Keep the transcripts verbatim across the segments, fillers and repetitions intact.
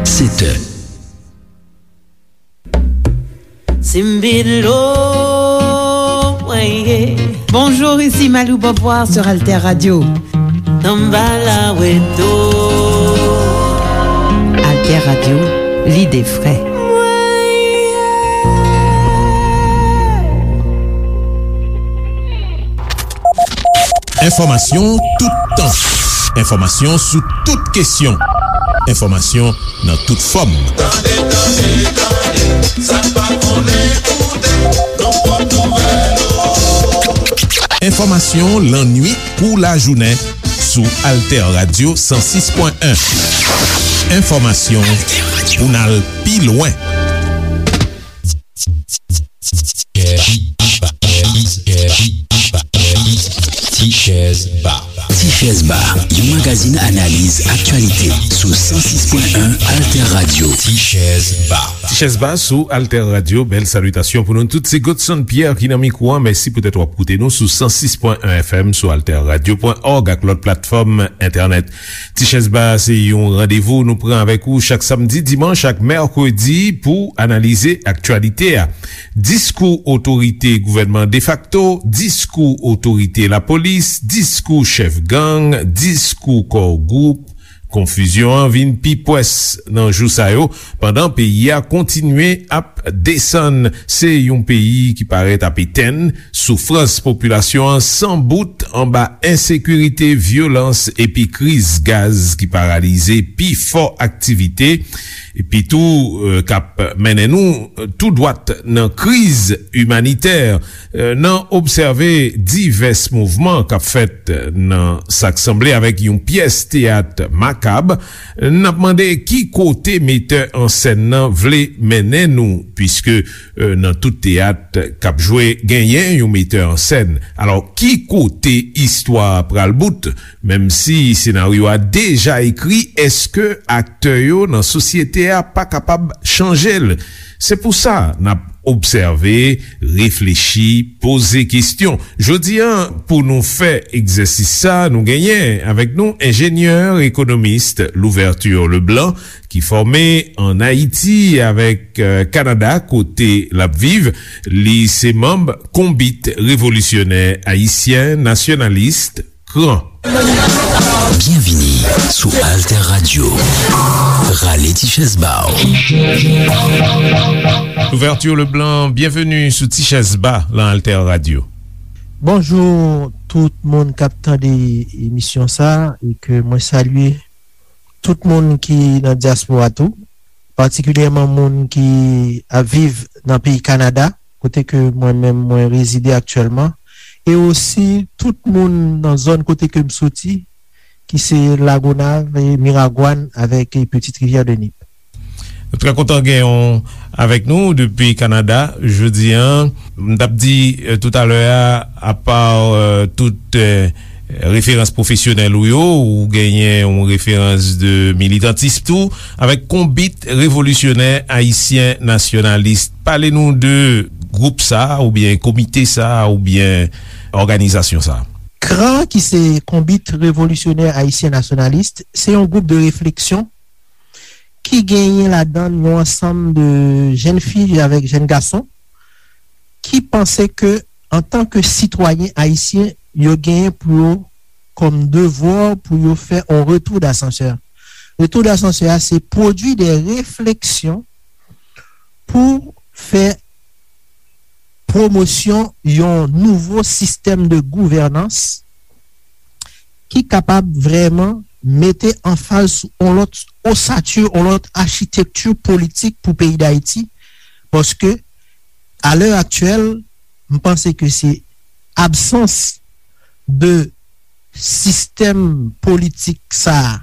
Sèt è. Simbilo, mwen ye. Bonjour, ici Malou Beauvoir sur Alter Radio. Tanbala weto. Alter Radio, l'idée vraie. Enfòmasyon toutan. Enfòmasyon sou tout kesyon. Enfòmasyon nan tout fòm. Tande, tande, tande, sa n pa konnen koute, nan pwòp nouvèl yo. Enfòmasyon lannuit kou lajounen sou Alter Radio san sis pwen en. Enfòmasyon pou n al pi lwen. Tichèz Ba. Tichèz Ba, yon magazin analiz aktyalite sou san sis pwen en Alter Radio. Tichèz Ba. Tichèz Ba sou Alter Radio. Bèl salitasyon pou nou tout. Se Godson Pierre ki nan mikwo a. Mèsi poutèt w ap koute nou sou san sis pwen en F M, sou alter radio pwen òg ak lòt platfòm entènèt. Tichèz Ba se yon randevou nou pran avèk ou chak samdi, dimanch ak mèkredi pou analize aktyalite a. Diskou otorite gouvènman defakto, diskou otorite lapolis, diskou chèf gang, diskou kò gwoup, konfizyon an vin pi pwès nan jou sa yo, pandan peyi a kontinye ap desann. Se yon peyi ki parèt ap etenn, soufrans popilasyon an san bout anba ensekirite, vyolans epi kriz gaz ki paralize pi fò aktivite, epi tou, eh, k ap mennen nou tou dwat nan kriz imanitè. Eh, nan obsève divès mouvman k ap fèt nan sa k sanble avèk yon pyès teyat makab, n ap mande ki kote metè an sèn nan vle mennen nou, piske, eh, nan tout teyat k ap jwe, genyen yon metè an sèn. Alò, ki kote istwa a pral bout? Menm si senaryo a deja ekri, èske aktè yo nan sosyete a pa kapab chanje l? Se pou sa n ap obsève, reflechi, poze kesyon. Jodi a, pou nou fè egzèsis sa, nou genyen avèk nou enjenyè ekonomis Louverture Leblanc, ki fòme ann Ayiti avèk, eh, Kanada, kote l ap viv. Li se manm Konbit Revolisyonè Ayisyen Nasyonalis, KRAN. Byenvini sou Alter Radio. Rale ti chèz ba w. Louverture Leblanc, byenveni sou Ti Chèz Ba lan Alter Radio. Bonjou tout moun k ap tande emisyon sa, e ke mwen salye tout moun ki nan dyaspora tou, patikilyèman moun ki ap viv nan peyi Kanada, kote ke mwen menm mwen rezide aktyèlman, e osi tout moun nan zòn kote ke m soti, ki se Lagonav, e Miragwàn avèk, e Petite Rivière de Nip. Nou trè kontan gen w avèk nou depi Kanada jodi a. M t ap di, eh, toutalè a, apa, eh, tout, eh, referans pwofesyonèl ou yo, ou genyen yon referans de militantis tou, avèk Konbit Revolisyonè Ayisyen Nasyonalis. Pale nou de gwoup sa a, oubyen komite sa a, oubyen òganizasyon sa a. KRAN, ki se Konbit Revolisyonè Ayisyen Nasyonalis, se yon gwoup de refleksyon ki genyen ladan l yon ansanm de jèn fi avèk jèn gason ki panse ke, antanke sitwayen ayisyen, yo genyen pou yo kòm devwa pou yo fè yon retour d'ascenseur. Retour d'ascenseur a, se pwodui de refleksyon pou fè pwomosyon yon nouvo sistèm de gouvènans ki kapab vrèman mete anfaz sou yon lòt osati, yon lòt achitekti politik pou peyi Dayiti, paske, a lè aktyèl, m panse ke se absans de sistèm politik sa a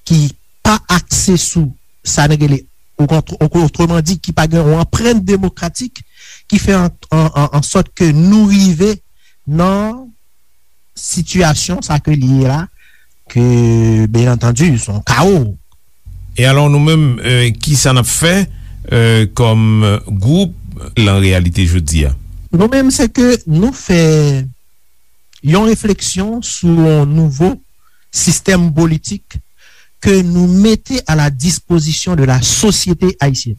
ki pa akse sou sa n rele, o kont-, o-, otreman di, ki pa gen yon anprent demokratik, ki fè an, an, an, an sòt ke nou rive nan sitiyasyon sa ke li ye la, ke, byen antandi, se yon kawo. E alò, nou menm, eh, ki sa n ap fè, eh, kòm gwoup lan reyalite jodi a? Nou menm, se ke nou fè yon refleksyon sou yon nouvo sistèm politik ke nou mete à la disposition de la société haïtienne.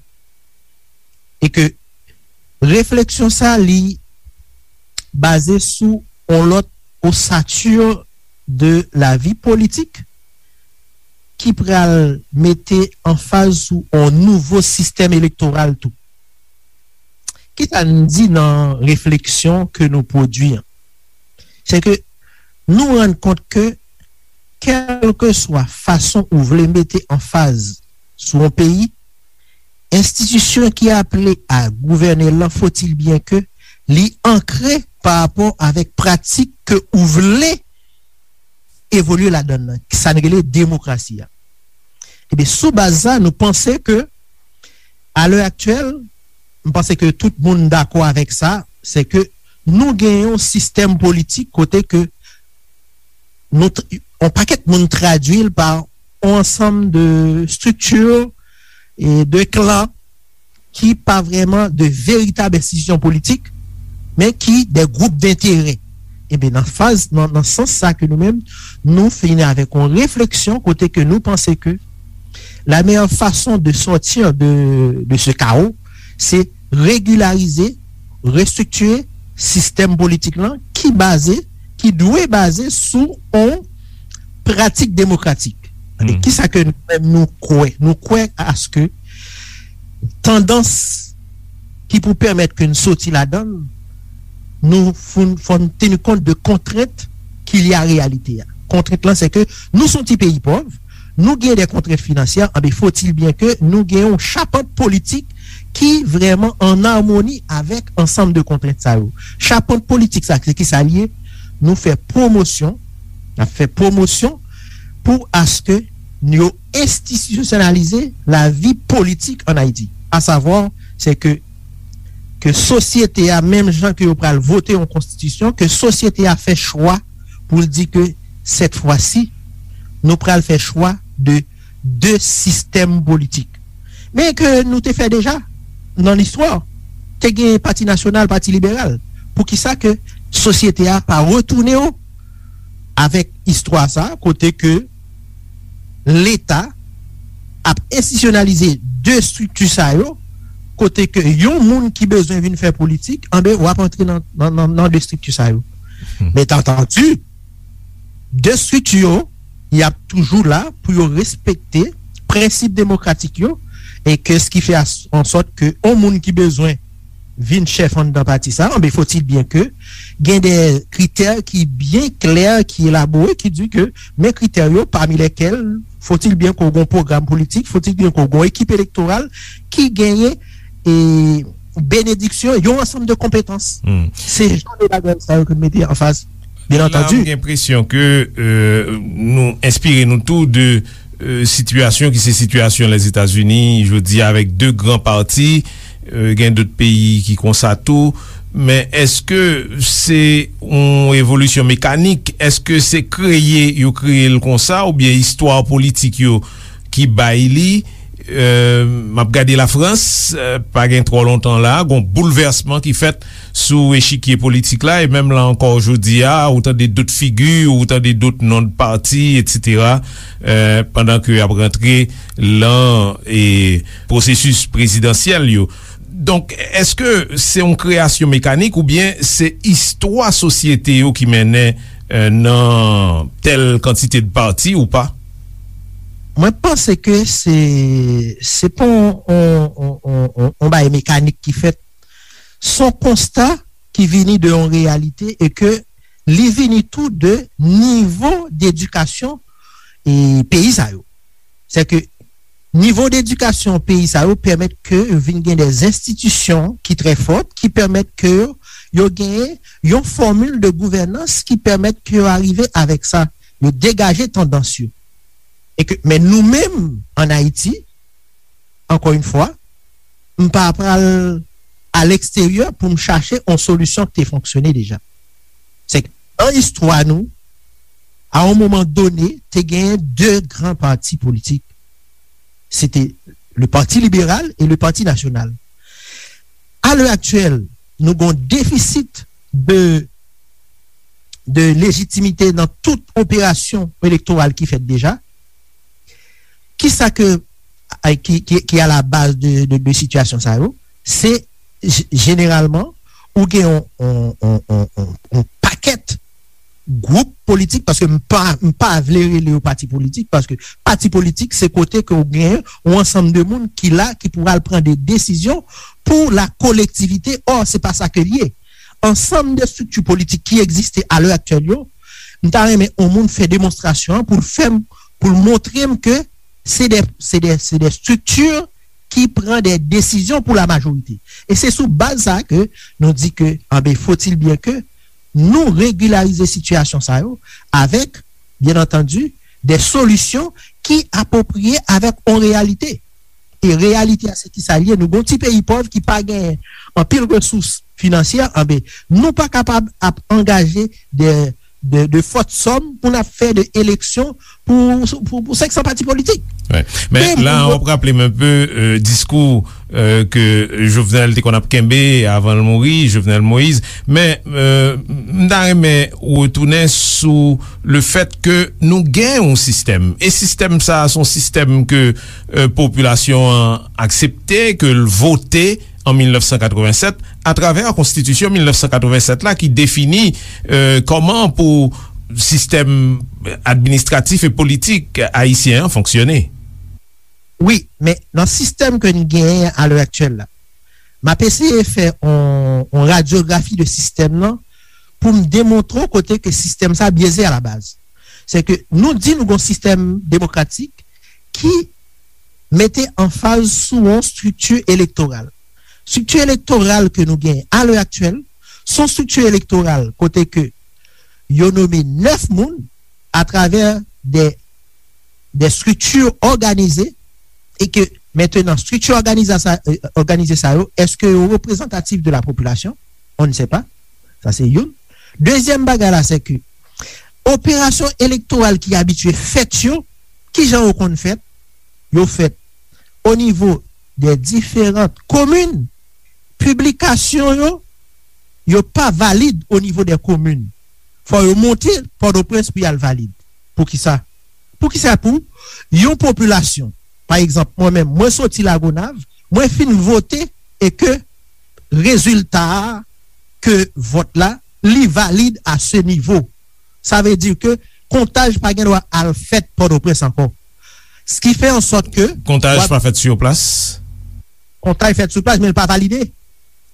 E ke refleksyon sa, li baze sou yon lòt ossature de la vie politique ki pral mete anfaz sou yon nouvo sistèm elektoral tou. Kisa n di nan refleksyon ke nou pwodui an? Se ke nou rann kont ke, kèlkeswa fason ou vle mete anfaz sou yon peyi, enstitisyon ki aple a gouvène l lan, faut-il bien que li ankre pa rapò avèk pratik ke ou vle evolye ladan l lan, sa n rele demokrasi a. Ebyen, sou baz sa, nou panse ke, a lè aktyèl, m panse ke tout moun dakò avèk sa, se ke nou gen yon sistèm politik kote ke nou, yon pakèt moun tradui l pa yon ansanm de strikti e de klan ki pa vrèman de veritab enstitisyon politik, men ki de gwoup denterè. Ebyen, nan faz, nan, nan sans sa ke nou menm, nou vini avèk yon refleksyon kote ke nou panse ke la meilleure façon de sortir de, de ce chaos, se regilarize, restriktire sistèm politik lan ki baze, ki dwe baze sou yon pratik demokratik. E kisa ke nou menm nou kwè? Nou kwè aske tandans ki pou pèmèt ke n soti ladan l, nou fò n, fò n teni kont de kontrent ki lye a reyalite a. Kontrent lan, se ke nou se yon ti peyi pòv, nou gen de kontrent finansyè, anben, faut-il bien que nou gen yon chapant politik ki vrèman an amoni avèk ansanm de kontrent sa yo. Chapant politik sa, se ki sa l ye? Nou fè pwomosyon, n ap fè pwomosyon pou aske yo enstitisyonalize lavi politik ann Ayiti. Asavwa, se ke, ke sosyete a, menm jan ke yo pral vote yon konstitisyon, ke sosyete a fè chwa pou l di ke, cette fois-ci, nou pral fè chwa de de sistèm politik. Men ke nou te fè deja nan listwa, te gen Pati Nasyonal, Pati Liberal. Poukisa ke sosyete a pa retounen yo avèk istwa sa, kote ke Leta ap enstitisyonalize de estrikti sa yo, kote ke yon moun ki bezwen vin fè politik, anben, w ap antre nan, nan, nan, nan de estrikti sa yo. Men, entandu, de estrikti yo, y ap toujou la pou yo respekte prensip demokratik yo, e ke s ki fè as-, an sòt ke yon moun ki bezwen vin chèf anndan pati sa, anben, faut-il bien que gen de kritè ki byen klè, ki elabore, ki di ke men kritè yo, parmi lesquels, faut-il bien que w gen yon pwogram politik, faut-il bien que w gen yon ekip elektoral ki genyen e benediksyon, yon ansanm de konpetans. Se jan de bagay sa yo ke n mete anfas, byen antandi. La, m gen enpresyon ke, euh, nou enspire nou tou de, euh, sitiyasyon ki se sitiyasyon Lèzetazini jodi a, avèk de gran pati, euh, gen dòt peyi ki konsa tou. Men èske se yon evolisyon mekanik? Èske se kreye yo kreye l konsa, oubyen istwa politik yo ki bay li? Euh, m ap gade Lafrans, euh, pa gen twò lontan la, gon boulvèsman ki fèt sou echikye politik la, e menm la ankò jodi a, ou tande dòt figi, ou tande dòt non de pati, etsetera, euh, pandan ke y ap rantre lan, e, pwosesis prezidansyèl yo. Donk, èske se yon kreyasyon mekanik oubyen se istwa sosyete yo ki mennen, euh, nan tèl kantite de pati ou pa? Mwen panse ke se, se pa yon, yon, yon, yon, yon, yon bagay mekanik ki fèt. Se yon konsta ki vini de yon reyalite e ke li vini tou de nivo dedikasyon e peyi sa yo. Se ke nivo dedikasyon peyi sa yo pèmèt ke yo vin gen de enstitisyon ki trè fòt, ki pèmèt ke yo, yo genyen yon fòmil de gouvènans ki pèmèt ke yo arive avèk sa, yo degaje tandans yo. E ke, men nou menm, ann Ayiti, ankò yon fwa, m pa pral a leksteryè pou m chache yon solisyon ki te fonksyone deja. Se ke nan istwa nou, a yon moman done, te genyen de gran pati politik. Se te le Parti Libéral et le Parti National. A lè aktyèl, nou gen yon defisit de, de lejitimite nan tout operasyon elektoral ki fèt deja. Kisa ke, ki, ki, ki a la baz de, de, de sitiyasyon sa yo? Se j-, jeneralman, ou gen yon, yon, yon, yon, yon, yon pakèt gwoup politik, paske m pa, m pa vle rele yo pati politik, paske pati politik se kote ke w gen yon ansanm de moun ki la, ki pou al pran de desizyon pou la kolektivite. Ò, se pa sa ke l ye. Ansanm de estrikti politik ki egziste a lè aktyèl yo, m ta renmen yon moun fè demonstrasyon an pou l fè m, pou l montre m ke se de, se de, se de estrikti ki pran de desizyon pou la majorite. E se sou baz sa ke nou di ke, anben, faut-il bien que nou regilarize sitiyasyon sa yo avèk, byen antandi, de solisyon ki apwopriye avèk yon reyalite. E reyalite a, se ki sa l ye? Nou gon ti peyi pòv ki pa gen anpil resous finansyè, anben, nou pa kapab ap angaje de, de, de fòt sòm pou n ap fè de eleksyon pou, pou, pou senk san pati politik. Wi. Men la, w ap raple m enpe, euh, diskou, euh, ke Jovenel te konn ap kenbe avan l mouri, Jovenel Moïse. Men, euh, m ta renmen retounen sou le fèt ke nou gen yon sistèm. E sistèm sa a, se yon sistèm ke, euh, popilasyon an aksepte, ke l vote an mil nèf san katreven sèt, atravè konstitisyon mil nèf san katreven sèt la ki defini, euh, kòman pou sistèm administratif e politik ayisyen an fonksyone. Wi, men nan sistèm ke n genyen a lè aktyèl la, m ap eseye fè on, on radyografi de sistèm nan pou m demontre w kote ke sistèm sa byeze a la baz. Se ke nou di nou gon sistèm demokratik ki mete anfaz sou yon estrikti elektoral. Estrikti elektoral ke nou genyen a lè aktyèl, se yon estrikti elektoral kote ke yo nome nèf moun atravè de, de estrikti òganize e ke mentenan estrikti òganiza sa, euh, òganize sa yo, èske yo reprezantatif de la popilasyon? On ne sait pas. Sa se youn. Dezyèm bagay la, se ke operasyon elektoral ki abitye fèt yo, kijan yo konn fèt? Yo fèt o nivo de diferan komin. Piblikasyon yo, yo pa valid o nivo de komin. Fò yo monte Pòtoprens pou y al valid. Poukisa? Poukisa pou yon popilasyon, pa egzanp, mwen menm, mwen soti Lagonav, mwen fin vote e ke rezilta a, ke vòt la, li valid a se nivo. Sa vle di ke kontaj pa gen dwa al fèt Pòtoprens ankò. S ki fè an sòt ke kontaj pa fèt sou plas. Kontaj fèt sou plas, men l pa valide.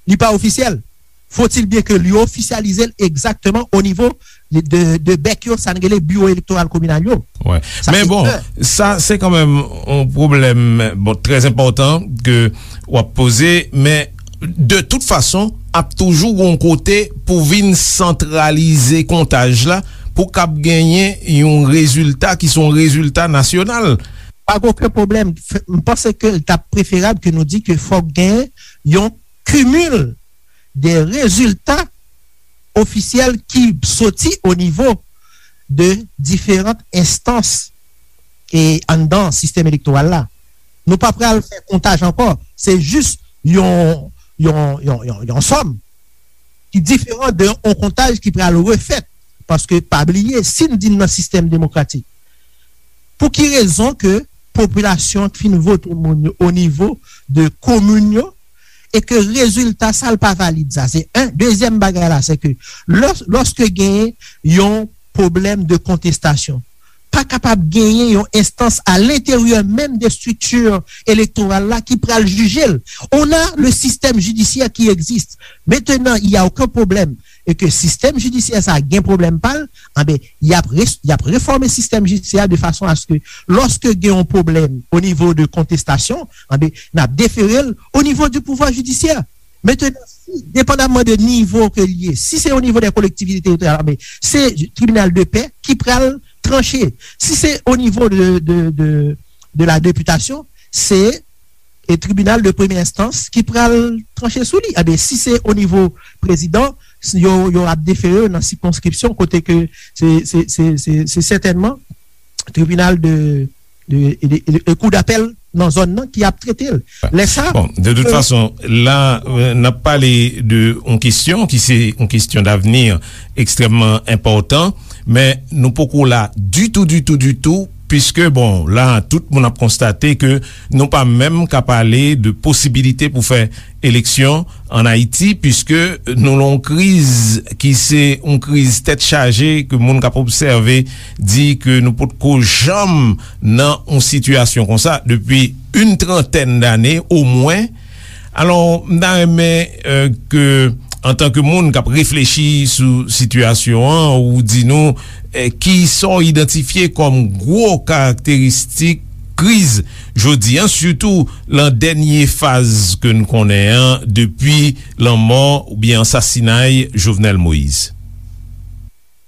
Li pa ofisyèl. Faut-il bien que li ofisyalize l egzakteman o nivo de, de, de bèk yo, sa n rele biwo elektoral kominal yo. Wi. Men bon, sa se kanmenm yon pwoblèm, bon, trè enpòtan ke w ap poze, men de tout fason, ap toujou gon kote pou vin santralize kontaj la, pou k ap genyen yon rezilta ki se yon rezilta nasyonal. Pa gen okenn pwoblèm. F-, m panse ke l t ap preferab ke nou di ke fòk gen yon kimil de rezilta ofisyèl ki soti o nivo de diferan enstans e anndan sistèm elektoral la. Nou pa pral fè kontaj ankò. Se jis yon, yon, yon, yon, yon sòm ki diferan de yon kontaj ki pral refèt. Paske, pa bliye, si n di n nan sistèm demokratik, pou ki rezon ke popilasyon ki fin vote moun yo o nivo de komin yo, e ke rezilta sa l pa valid sa? Se en. Dezyèm bagay la, se ke lò-, lòske genyen yon pwoblèm de kontestasyon, pa kapab genyen yon enstans a lenteryè menm de estrikti elektoral la ki pral jije l. On a le système judiciaire qui existe. Maintenant, il y a aucun problème. E ke sistèm jidisyè sa a gen pwoblèm pa l, anben, y ap res-, y ap refòme sistèm jidisyè a de fason a se ke lòske gen yon pwoblèm o nivo de kontestasyon, anben, n ap defere l o nivo di pouvwa jidisyè. Maintenant, si, depandamman de nivo ke l ye, si se o nivo de kolektivite teritoryal, anben, se tribinal de pè ki pral tranche. Si se o nivo de, de, de, de la députation, se e tribinal de premye enstans ki pral tranche sou li. Anben, si se o nivo prezidan, s-, yo, yo ap defere nan sikonskripsyon kote ke se, se, se, se, se sètènman tribinal de, de, de, de, de kou dapèl nan zòn nan ki ap trete l. Lè sa, bon, de tout fason, la, euh, n ap pale de yon kesyon ki se yon kesyon davni ekstrèmman enpòtan, men nou poko la ditou, ditou, ditou piske, bon, la, tout moun ap konstate ke nou pa menm ka pale de posibilite pou fè eleksyon ann Ayiti, piske nou nan yon kriz ki se yon kriz tèt chaje, ke moun k ap obsève di ke nou potko janm nan yon sitiyasyon konsa depi yon trantèn dane omwen. Alò, m ta renmen, eh, ke, antanke moun k ap reflechi sou sitiyasyon an, ou di nou, eh, kisa w idantifye kòm gwo karakteristik kriz jodi a, sitou lan dènye faz ke n konnen an, depi lanmò oubyen ansasinay Jovenel Moïse.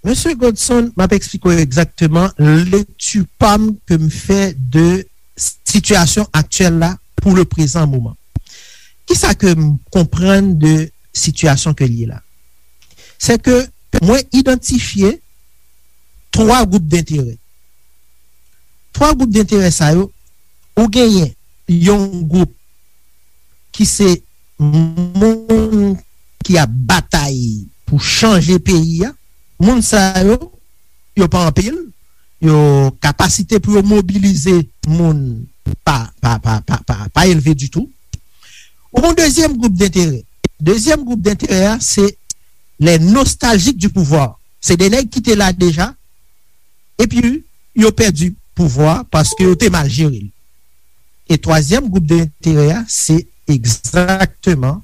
Mesye Godson, m ap eksplike w egzakteman lekti pa m ke m fè de sitiyasyon aktyèl la pou le prezan moman. Kisa ke m konprann de sitiyasyon ke l ye la? Se ke mwen idantifye twa gwoup denterè. Twa gwoup denterè sa yo, ou genyen yon gwoup ki se moun ki ap batay pou chanje peyi a. Moun sa yo, yo pa anpil, yo, kapasite pou yo mobilize moun pa, pa, pa, pa, pa, pa elve ditou. Ou gon dezyèm gwoup denterè. Dezyèm gwoup denterè a, se les nostalgiques du pouvoir. Se de nèg ki te la deja, epi yo pèdi pouvwa paske yo te mal jere l. E twazyèm gwoup denterè a, se egzakteman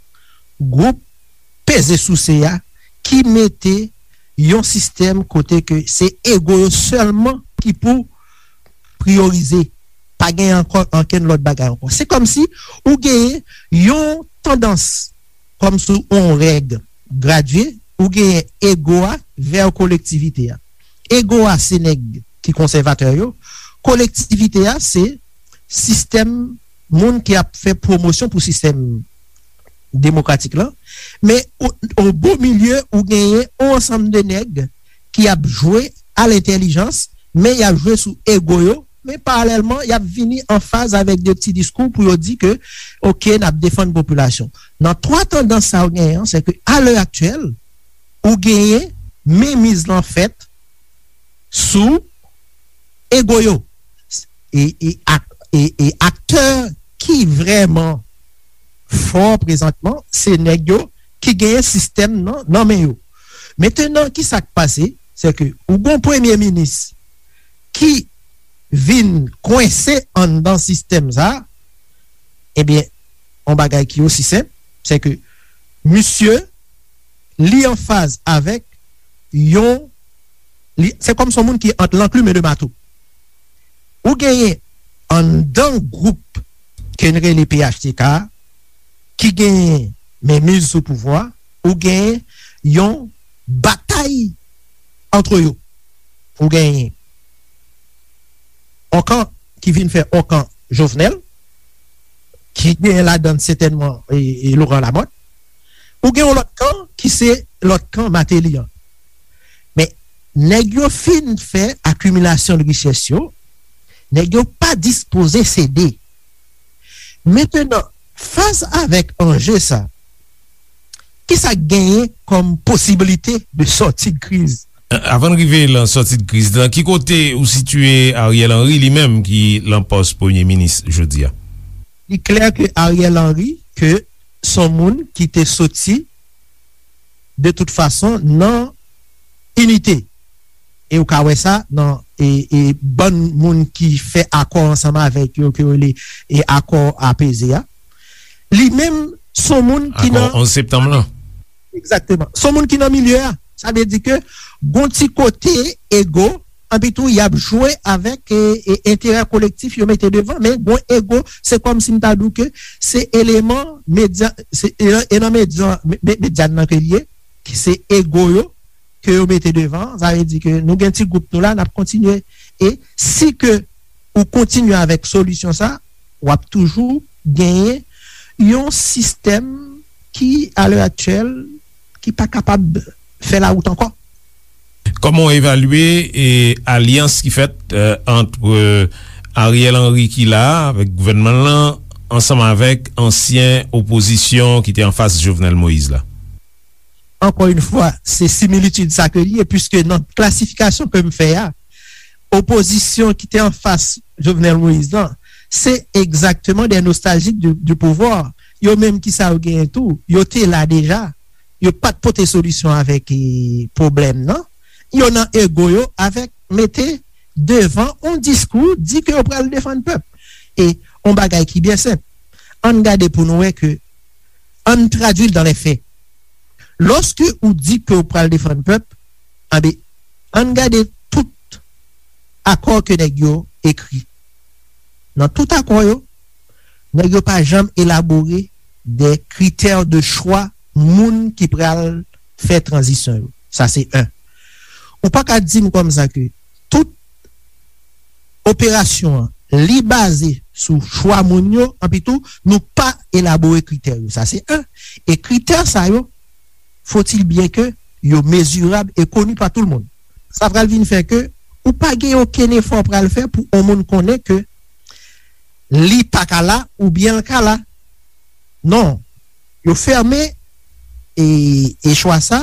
gwoup peze souse a ki mete yon sistèm kote ke se ego yo sèlman ki pou priyorize. Pa gen ankò ankenn lòt bagay ankò. Se kòmsi ou genyen yon tandans, kòmsi yon règ gradye, ou genyen ego a vè kolektivite a. Ego a se nèg ki konsèvatè yo, kolektivite a se sistèm moun ki ap fè pwomosyon pou sistèm demokratik lan, men o, o bo milye ou genyen yon ansanm de nèg ki ap jwe a lentèlijans, men y ap jwe sou ego yo, men paralèlman, y ap vini an faz avèk de ti diskou pou yo di ke, oke, n ap defann popilasyon. Nan twa tandans sa yo genyen an, se ke a lè aktyèl, ou genyen menmiz lan fèt sou ego yo. E, e, ak, e, e aktè ki vrèman fò prezantman, se nèg yo ki genyen sistèm nan, nan men yo. Mentenan, kisa k pase? Se ke ou gon premye minis ki vin kwense anndan sistèm sa, ebyen, yon bagay ki osi senp, se ke misye, li anfaz avèk yon, li, se kòm se yon moun ki ant lanklime de mato. Ou genyen anndan gwoup ke n rele P H T K a, ki genyen menmiz sou pouvwa, ou genyen yon batay antre yo. Ou genyen yon kan ki vin fè yon kan Jovenel, ki genyen ladann sètènman e, e Laurent Lamothe. Ou gen yon lòt kan ki se lòt kan Martelly an. Men, nèg yo fin fè akimilasyon de richès yo, nèg yo pa dispoze sede. Mentenan, fas avèk anje sa, kisa k genyen kòm posiblite de sòti de kriz? Avan n rive lan sòti de kriz, lan ki kote ou sitiye Ariel Henry li menm ki lan pòs premye minis jodi a? Li klè ke Ariel Henry, ke s on moun ki te soti de tout fason nan inite. E ou ka wè sa nan e, e bann moun ki fè akò ansanm avèk yo, ke yo rele e akò apeze a. Li menm, s on moun ki nan onz septanm lan. Egzakteman. S on moun ki nan milye a. Sa vle di ke gon ti kote ego, anpi tou y ap jwe avèk e, e enterè kolektif yo mete devan, men gon ego, se kòmsi m ta di w ke se eleman medya, se, e, e nan medya, me, me, medya nan ke l ye, ki se ego yo, ke yo mete devan, sa vle di ke nou gen ti gwoup nou la, n ap kontinye. E si ke ou kontinye avèk solisyon sa, w ap toujou genyen yon sistèm ki, a lè aktyèl, ki pa kapab fè lawout ankò. Kòman w evalye, e, alyans ki fèt, e, ant, e, Ariel Henry ki la a, avèk gouvènman l lan, ansanm avèk ansyen opozisyon ki te anfas Jovenel Moïse la? Ankò yon fwa, se similitid sa ke li ye, piske nan klasifikasyon ke m fè a, opozisyon ki te anfas Jovenel Moïse lan, se egzakteman de nostaljik di, di pouvwa. Yo menm ki sa yo genyen tou, yo te la deja. Yo pa t pote solisyon avèk e, pwoblèm nan. Yo nan ego yo avèk mete devan yon diskou, di ke yo pral defann pèp. E yon bagay ki byen senp. Ann gade pou nou wè ke, ann tradui l dan lè fè. Lòske ou di ke ou pral defann pèp, anben, ann gade tout akò ke nèg yo ekri. Nan tout akò yo, nèg yo pa janm elabore de kritè de chwa moun ki pral fè tranzisyon yo. Sa se en. Ou pa ka di m kòmsa ke tout operasyon an, li baze sou chwa moun yo, anpi tou, nou pa elabore kritè yo. Sa se en. E kritè sa yo, faut-il bien que yo mezirab e koni pa tout moun. Sa pral vin fè ke ou pa gen okenn efò pral fè pou yon moun konnen ke li pa ka la oubyen l ka la. Non. Yo fèmen e, e chwa sa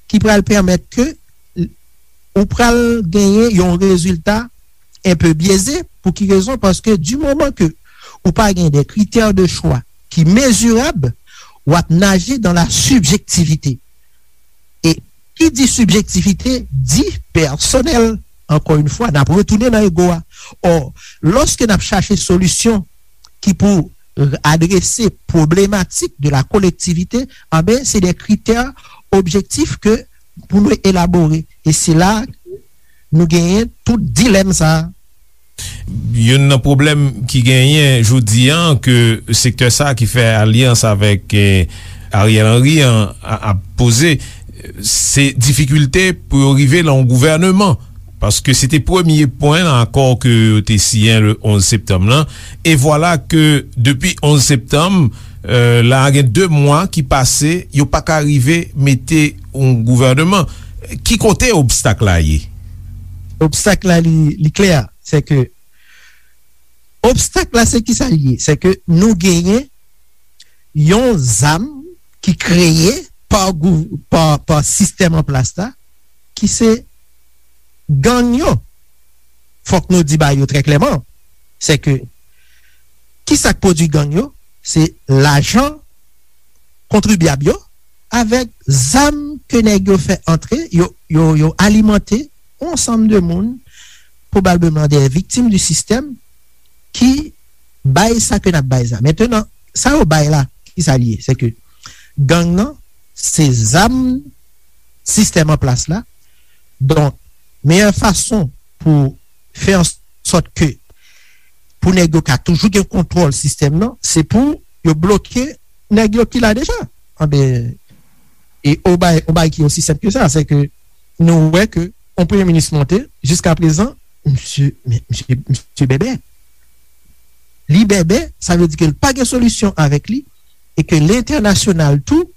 ki pral pèmèt ke ou pral genyen yon rezilta enpe byeze. Pou ki rezon? Paske di moman ke ou pa gen de kritè de chwa ki mezirab, w ap naje dan la sibjektivite. E ki di sibjektivite, di pèsonèl. Ankò yon fwa, n ap retounen nan ego a. Ò, lòske n ap chache solisyon ki pou adrese pwoblematik de la kolektivite, anben, se de kritè objektif ke pou nou elabore. E se la nou genyen tout dilèm sa a. Youn nan pwoblèm ki genyen jodi an ke sektè sa a ki fè alyans avèk eh, Ariel Henry an ap poze, se difikilte pou yo rive nan yon gouvèneman. Paske se te premye pwen nan akò ke yo te siyen le onz septanm lan. E vwala ke depi onz septanm, euh, la gen de mwa ki pase, yo pa ka rive mete yon gouvèneman. Ki kote obstak la ye? Obstak la li, li klè, se ke obstak la se ki sa li ye? Se ke nou genyen yon zam ki kreye pa, pa, pa sistèm an plas la, ki se gang yo. Fòk nou di bagay yo trè klèman. Se ke ki sa k pwodui gang yo? Se lajan kontribyab yo avèk zam ke nèg yo fè antre, yo, yo, yo alimante yon ansanm de moun, pwobableman de viktim di sistèm, ki bay sa ke n ap bay sa. Mentenan, sa yo bay la, ki sa li ye? Se ke gang nan, se zam sistèm an plas la. Donk, meyè fason pou fè an sòt ke pou nèg yo ka toujou gen kontwòl sistèm nan, se pou yo bloke nèg yo ki la deja. Anben, e yon bagay, yon bagay ki osi senp ke sa, se ke nou wè ke yon premye minis monte, jiska prezan, misye, men, misye, misye bèbè. Li bèbè, sa vle di ke l pa gen solisyon avèk li, e ke lentènasyonal tou,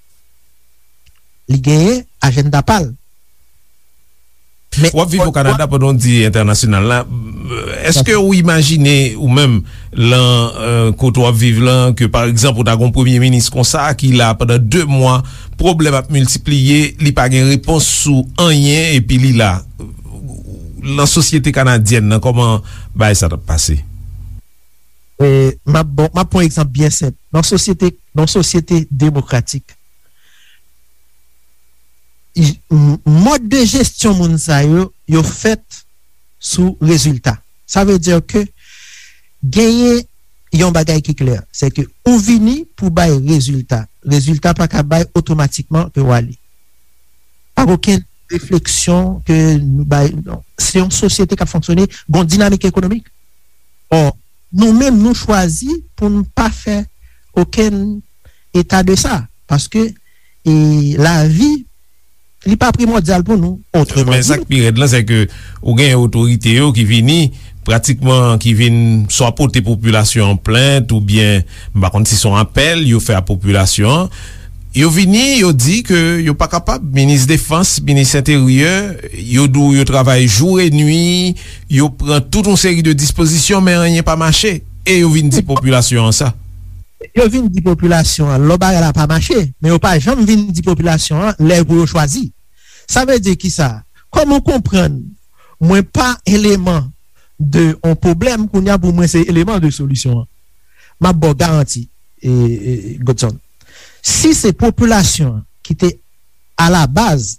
li genyen ajannda pa l. W ap viv o Kanada pandan w di entènasyonal la. Èske ou imajine ou menm lan kote w ap viv lan ke pa egzanp ou ta gen yon premye minis konsa ki la pandan de mwa, pwoblèm ap miltipliye, li pa gen repons sou anyen epi li la? Lan sosyete kanadyèn nan, kòman bagay sa t ap pase? M ap bon, m ap pran egzanp byen senp. Nan sosyete, nan sosyete demokratik, mòd de jesyon moun sa yo, yo fèt sou rezilta. Sa vle di ke genyen yon bagay ki klè, se ke ou vini pou bay rezilta. Rezilta pa ka bay otomatikman ke w ale. Pa okenn refleksyon ke nou bay, non. Se yon sosyete k ap fonksyone, gon dinamik ekonomik. Ò, nou menm nou chwazi pou n pa fè okenn eta de sa, paske e, lavi li pa primòdyal pou nou. Otreman di, men sa k pi rèd lan se ke ou gen otorite yo ki vini pratikman ki vin swa pote popilasyon an plent oubyen m pa konn si se yon apèl yo fè a popilasyon an. Yo vini, yo di ke yo pa kapab, minis defans, minis enteryè, yo di w yo travay jou e nwi, yo pran tout yon seri de dispozisyon men anyen pa mache. E yo vin di popilasyon an sa. Yo vin di popilasyon an lò bagay la pa mache, men yo pa janm vin di popilasyon an lè pou yo chwazi. Sa vle di kisa? Kòman w konprann mwen pa eleman de yon pwoblèm, kounye a pou mwen se eleman de solisyon an. M ap ba w garanti, e, e, Godson. Si se popilasyon an ki te alabaz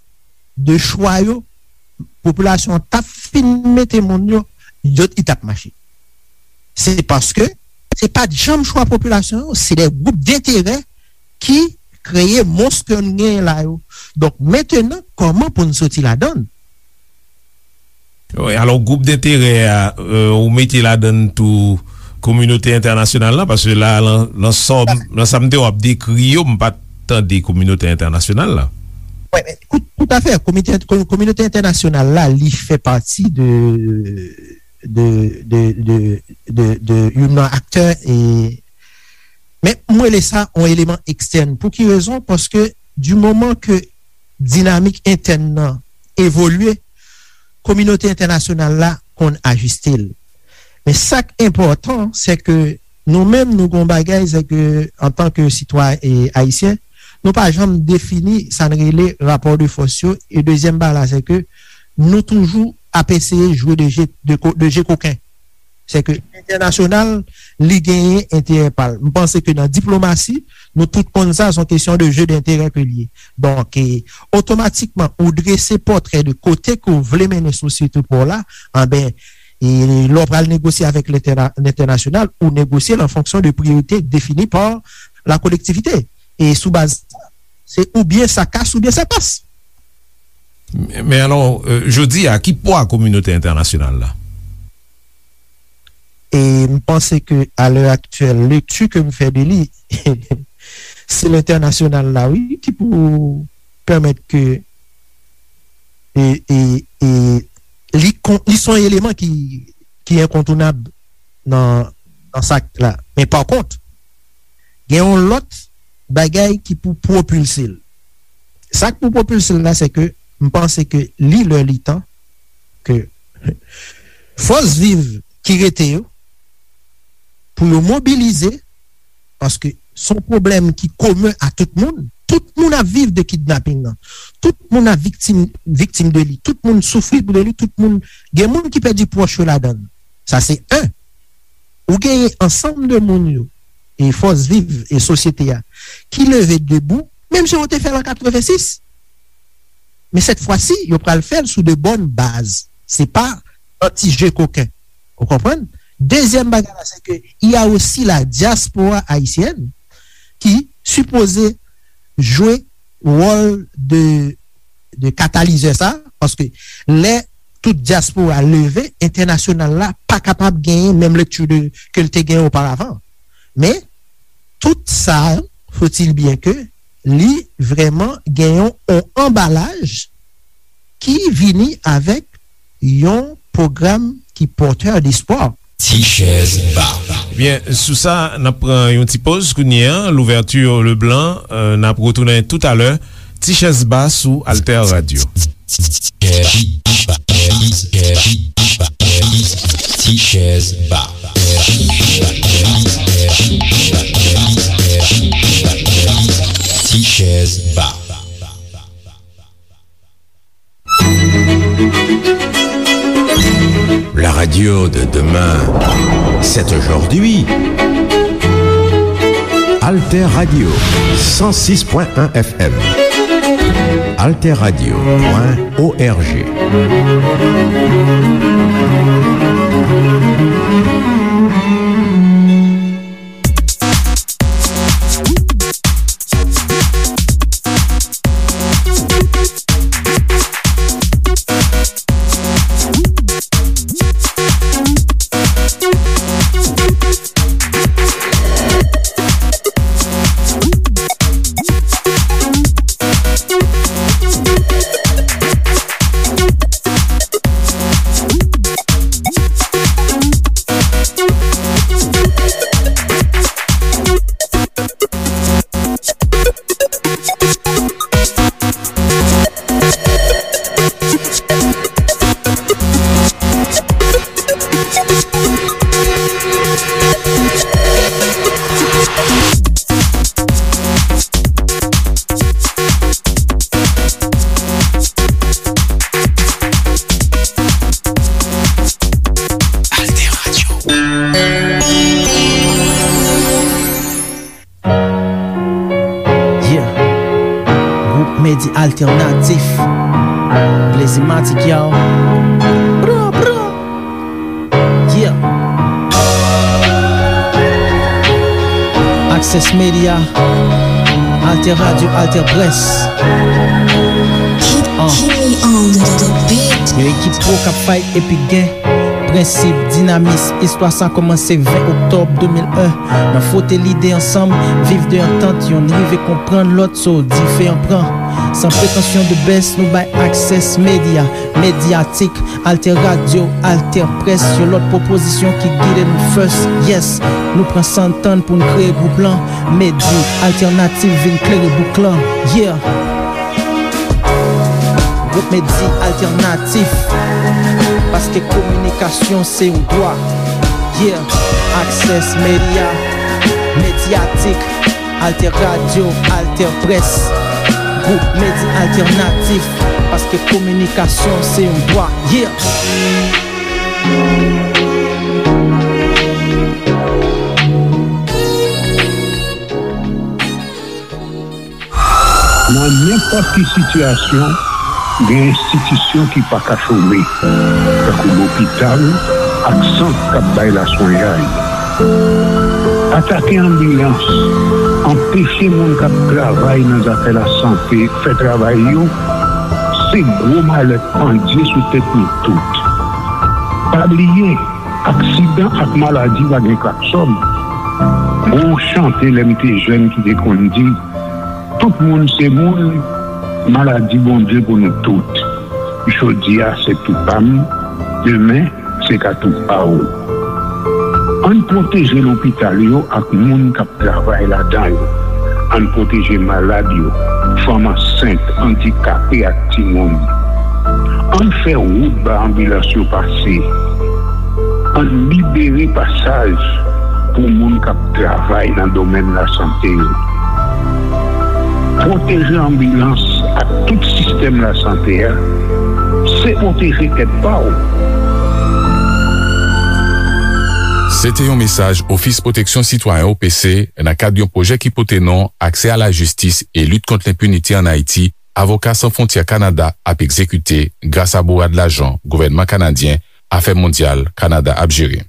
de chwa yo, popilasyon an t ap fin mete moun yo, yo, li t ap mache. Se paske se pa t janm chwa popilasyon yo, se de gwoup denterè ki kreye mons ke n genyen la yo. Donk, mentenan, kòman pou n soti ladan l? Wi, alò, gwoup denterè a, euh, ou mete ladan l tou kominote entènasyonal la, paske la, lan, lan sa, lan sa m te w ap dekri yo, m pa t tande kominote entènasyonal la. Wi, men, tout, tout à fait, komite, ko-, kominote entènasyonal la, li fè pati de, de, de, de, de, de youn nan aktè, e, men m rele sa yon eleman ekstèn. Pou ki rezon? Paske di moman ke dinamik entèn nan evolye, kominote entènasyonal la konn ajiste l. Men sa k enpòtan, se ke nou menm, nou gon bagay, se ke antanke sitwayen, e, ayisyen, nou pa janm defini sa n rele rapò de fòs yo. E dezyèm bagay la, se ke nou toujou ap eseye jwe de je, de ko-, de je koken. Se ke entènasyonal, li genyen enterè pa l. M panse ke nan diplomasi, nou tout konn sa, se yon kesyon de je denterè ke l ye. Donk, e, otomatikman, ou drese pòtrè de kote ke w vle mennen sosyete pa w la, anben, e, lè w pral negosye avèk lentèna-, lentènasyonal, ou negosye l an fonksyon de priyorite defini pa la kolektivite. E sou baz sa, se oubyen sa kas oubyen sa pas. Men, men alò, euh, jodi a, ki pwa kominote entènasyonal la? E m panse ke, a lè aktyèl, lekti ke m fè de li, se lentènasyonal la, wi, ki pou pèmèt ke, e, e, e, li kon-, li se yon eleman ki, ki enkontounab nan, nan sa k la. Men pa kont, gen yon lòt bagay ki pou pwopilse l. Sa k pou pwopilse l la, se ke m panse ke li lè li tan ke fòs viv ki rete yo, pou yo mobilize, paske se yon pwoblèm ki komen a tout moun. Tout moun ap viv de kidnaping nan. Tout moun ap viktim, viktim de li. Tout moun soufri de li. Tout moun, gen moun ki pèdi pwòch yo ladan l. Sa se en. Ou genyen ansanm de moun yo, e fòs viv e sosyete a, ki leve debou, menm jan yo te fè l an katrevensis. Men sèt fwa si, yo pral fè l sou de bòn baz. Se pa an ti je koken. Ou konprann? Dezyèm bagay la, se ke il y a aussi la diaspora haïtienne ki sipoze jwe wòl de, de katalizè sa, paske lè tout dyaspora leve, entènasyonal la pa kapab genyen menm lekti de, ke l te genyen oparavan. Men, tout sa, faut-il bien que li vrèman gen yon, yon anbalaj ki vini avèk yon pwogram ki pòtè despwa. Ti chèz ba. Byen, sou sa, n ap pran yon ti poz kounye a. Louverture Leblanc, euh, n ap retounen toutalè. Ti chèz ba sou Alter Radio. Ti chèz ba. Ti chèz ba. La radio de demain, c'est aujourd'hui. Alter Radio, cent six point un F M. Alter Radio point O R G. Medi Alternatif. Blazymatic, yo. Bra, bra. Yeah. Access Media. Alter Radio, Alter Presse. Keep, uh, keep me on the, the beat. Yon ekip pwo k ap fight epi gen prensip, dinamis. Istwa sa kòmanse ven oktòb de mil en. Nan fwote lide ansanm, viv de antant, yonn rive konprann lòt, so dife an pran. San pretansyon de best, nou bay Access Media, Mediatik, Alter Radio, Alter Presse, yon lòt pwopozisyon ki gide nou first. Yes, nou pran san n tann pou n kreye gwoup lan. Medi Alternatif vin klere bouk lan. Yeah. Gwoup Medi Alternatif, paske kominikasyon se yon dwa. Yeah, Access Media, Mediatik, Alter Radio, Alter Presse. Gwoup Medi Alternatif, paske kominikasyon se yon dwa. Yeah. Nan nenpòt ki sitiyasyon, gen enstitisyon ki pa ka chome, tankou lopital ak sant k ap bay laswenyay. Atake anbilans, anpeche moun k ap travay nan zafè lasante fè travay yo, se gwo malè k pandye sou tèt nou tout. Pa bliye, aksidan ak maladi pa gen klaksòn. Gon chante lè m te jèn ki te konn di, tout moun se moun, maladi Bondye pou nou tout. Jodi a se tou pa m, demen se ka tou pa w. Ann pwoteje lopital yo ak moun k ap travay ladan yo. Ann pwoteje malad yo, fanm ansent, andikape ak timoun. Ann fè wout ba anbilans yo pase. Ann libere pasaj pou moun k ap travay nan domèn lasante yo. Pwoteje anbilans ak tout sistèm lasante a, se pwoteje tèt pa w. Se te yon mesaj Ofis Pwoteksyon Sitwayen, O P C, nan kad yon pwojè ki pote non Aksè a la jistis e lit kont lenpinite ann Ayiti, Avoka San Fwontyè Kanada ap egzekite gras a bourad lajan gouvènman kanadyen, Afè Mondyal Kanada ap jere.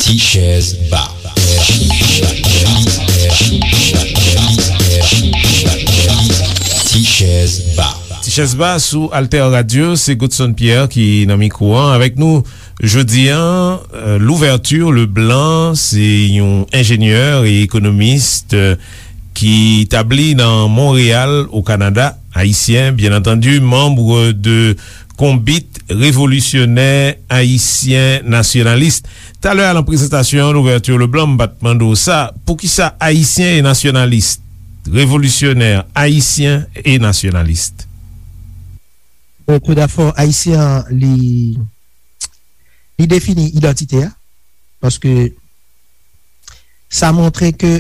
Ti chèz ba. Ti chèz ba. Ti chèz ba sou Alter Radio, se Godson Pierre ki nan mikwo an. Avèk nou jodi a, euh, Louverture Leblanc, se yon enjenyè e ekonomis, euh, ki tabli nan Monreyal, o Kanada, ayisyen, byen antandi, manm de Konbit Revolisyonè Ayisyen Nasyonalis. Talè a, nan prezantasyon an, Louverture Leblanc, m pa t mande w sa, poukisa ayisyen e nasyonalis? Revolisyonè, ayisyen e nasyonalis. Bon, tou dabò, ayisyen an, li, li defini idantite a, paske sa montre ke,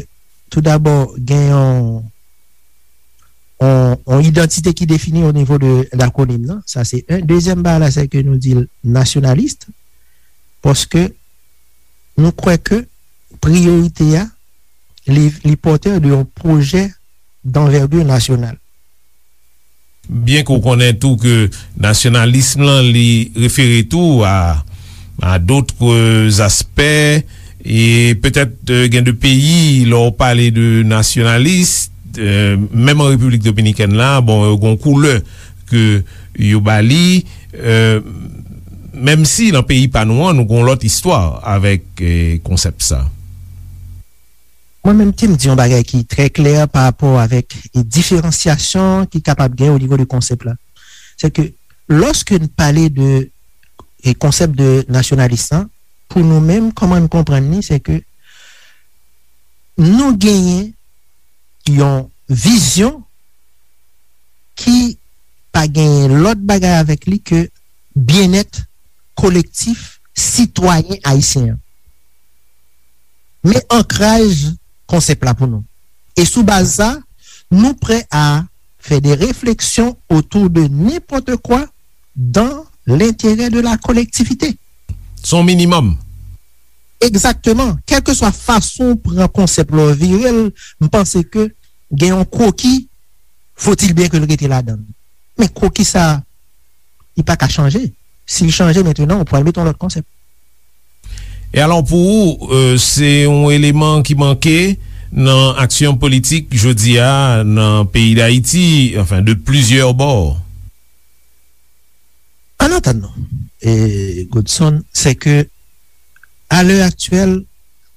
tou dabò, gen yon, yon, yon idantite ki defini o nivo de lakwonim nan. Sa, se youn. Dezyèm bagay la, se ke nou di l nasyonalis, paske nou kwè ke priyorite a, li, li pòtè de yon pwojè danvègi nasyonal. Byen ke w konnen tou ke nasyonalism lan, li refere tou a, a d'autres aspects, e petèt, euh, gen de peyi, lè w pale de nasyonalis, euh, menm an Repiblik Dominikèn la, bon, yo gen yon koulè ke yo ba li, euh, menm si nan peyi pa nou an, nou gen yon lòt istwa avèk, euh, konsèp sa. Mwen menm, te m di yon bagay ki trè klè pa rapò avèk, e, diferansyasyon ki kapab gen o nivo de konsèp la. Se ke, lòske n pale de, e, konsèp de nasyonalis lan, pou nou menm, kòman n konprann li, se ke nou genyen yon vizyon ki pa genyen lòt bagay avèk li ke byennèt kolektif sitwayen ayisyen an. Men ankraj konsèp la pou nou. E sou baz sa, nou prè a fè de refleksyon otou de nenpòt kwa dan lenterè de la kolektivite. Se yon minimòm. Egzakteman. Kèlkeswa fason w pran konsèp la, w vire l, m panse ke gen yon kwoki, faut-il bien ke l rete ladan l. Men kwoki sa a, li pa ka chanje. Si l chanje mentnan, ou pral met yon lòt konsèp. E alò, pou ou, euh, se yon eleman ki manke nan aksyon politik jodi a nan peyi Dayiti, anfen, de plizyè bò? An atandan, e, Godson, se ke, a lè aktyèl,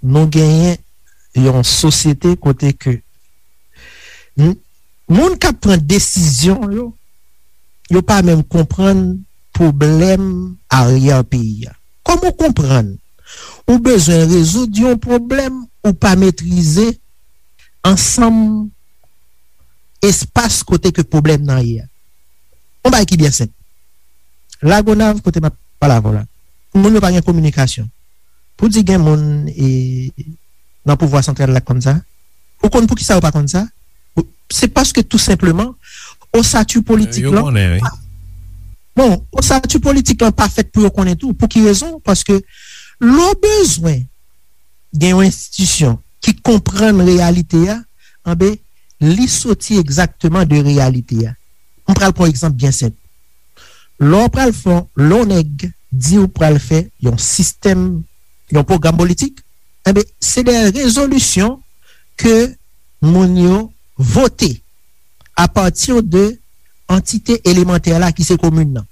nou genyen yon sosyete kote ke n-, moun k ap pran desizyon yo, yo pa menm konprann pwoblèm aryè peyi a. Kòman w konprann ou bezwen rezoud yon pwoblèm ou pa metrize ansanm espas kote ke pwoblèm nan ye a? Yon bagay ki byen senp. Lagonav, kote m ap pale avè w la, moun yo pa gen kominikasyon. Pou di gen moun e, nan pouvwa santral la k konn sa, ou konn poukisa yo pa konn sa? Ou, se paske tou senpleman, osati politik Yo lan konnen, wi. pa, bon, osati politik lan pa fèt pou yo konnen tou. Pou ki rezon? Paske lè w bezwen gen yon enstitisyon ki konprann reyalite a, anben, li soti egzakteman de reyalite a. M pral pran yon egzanp byen senp. Lè w pral fè, lè yon nèg di w pral fè yon sistèm, yon pwogram politik, enben, se de rezolisyon ke moun yo vote apati de antite elemantè la ki se komin nan.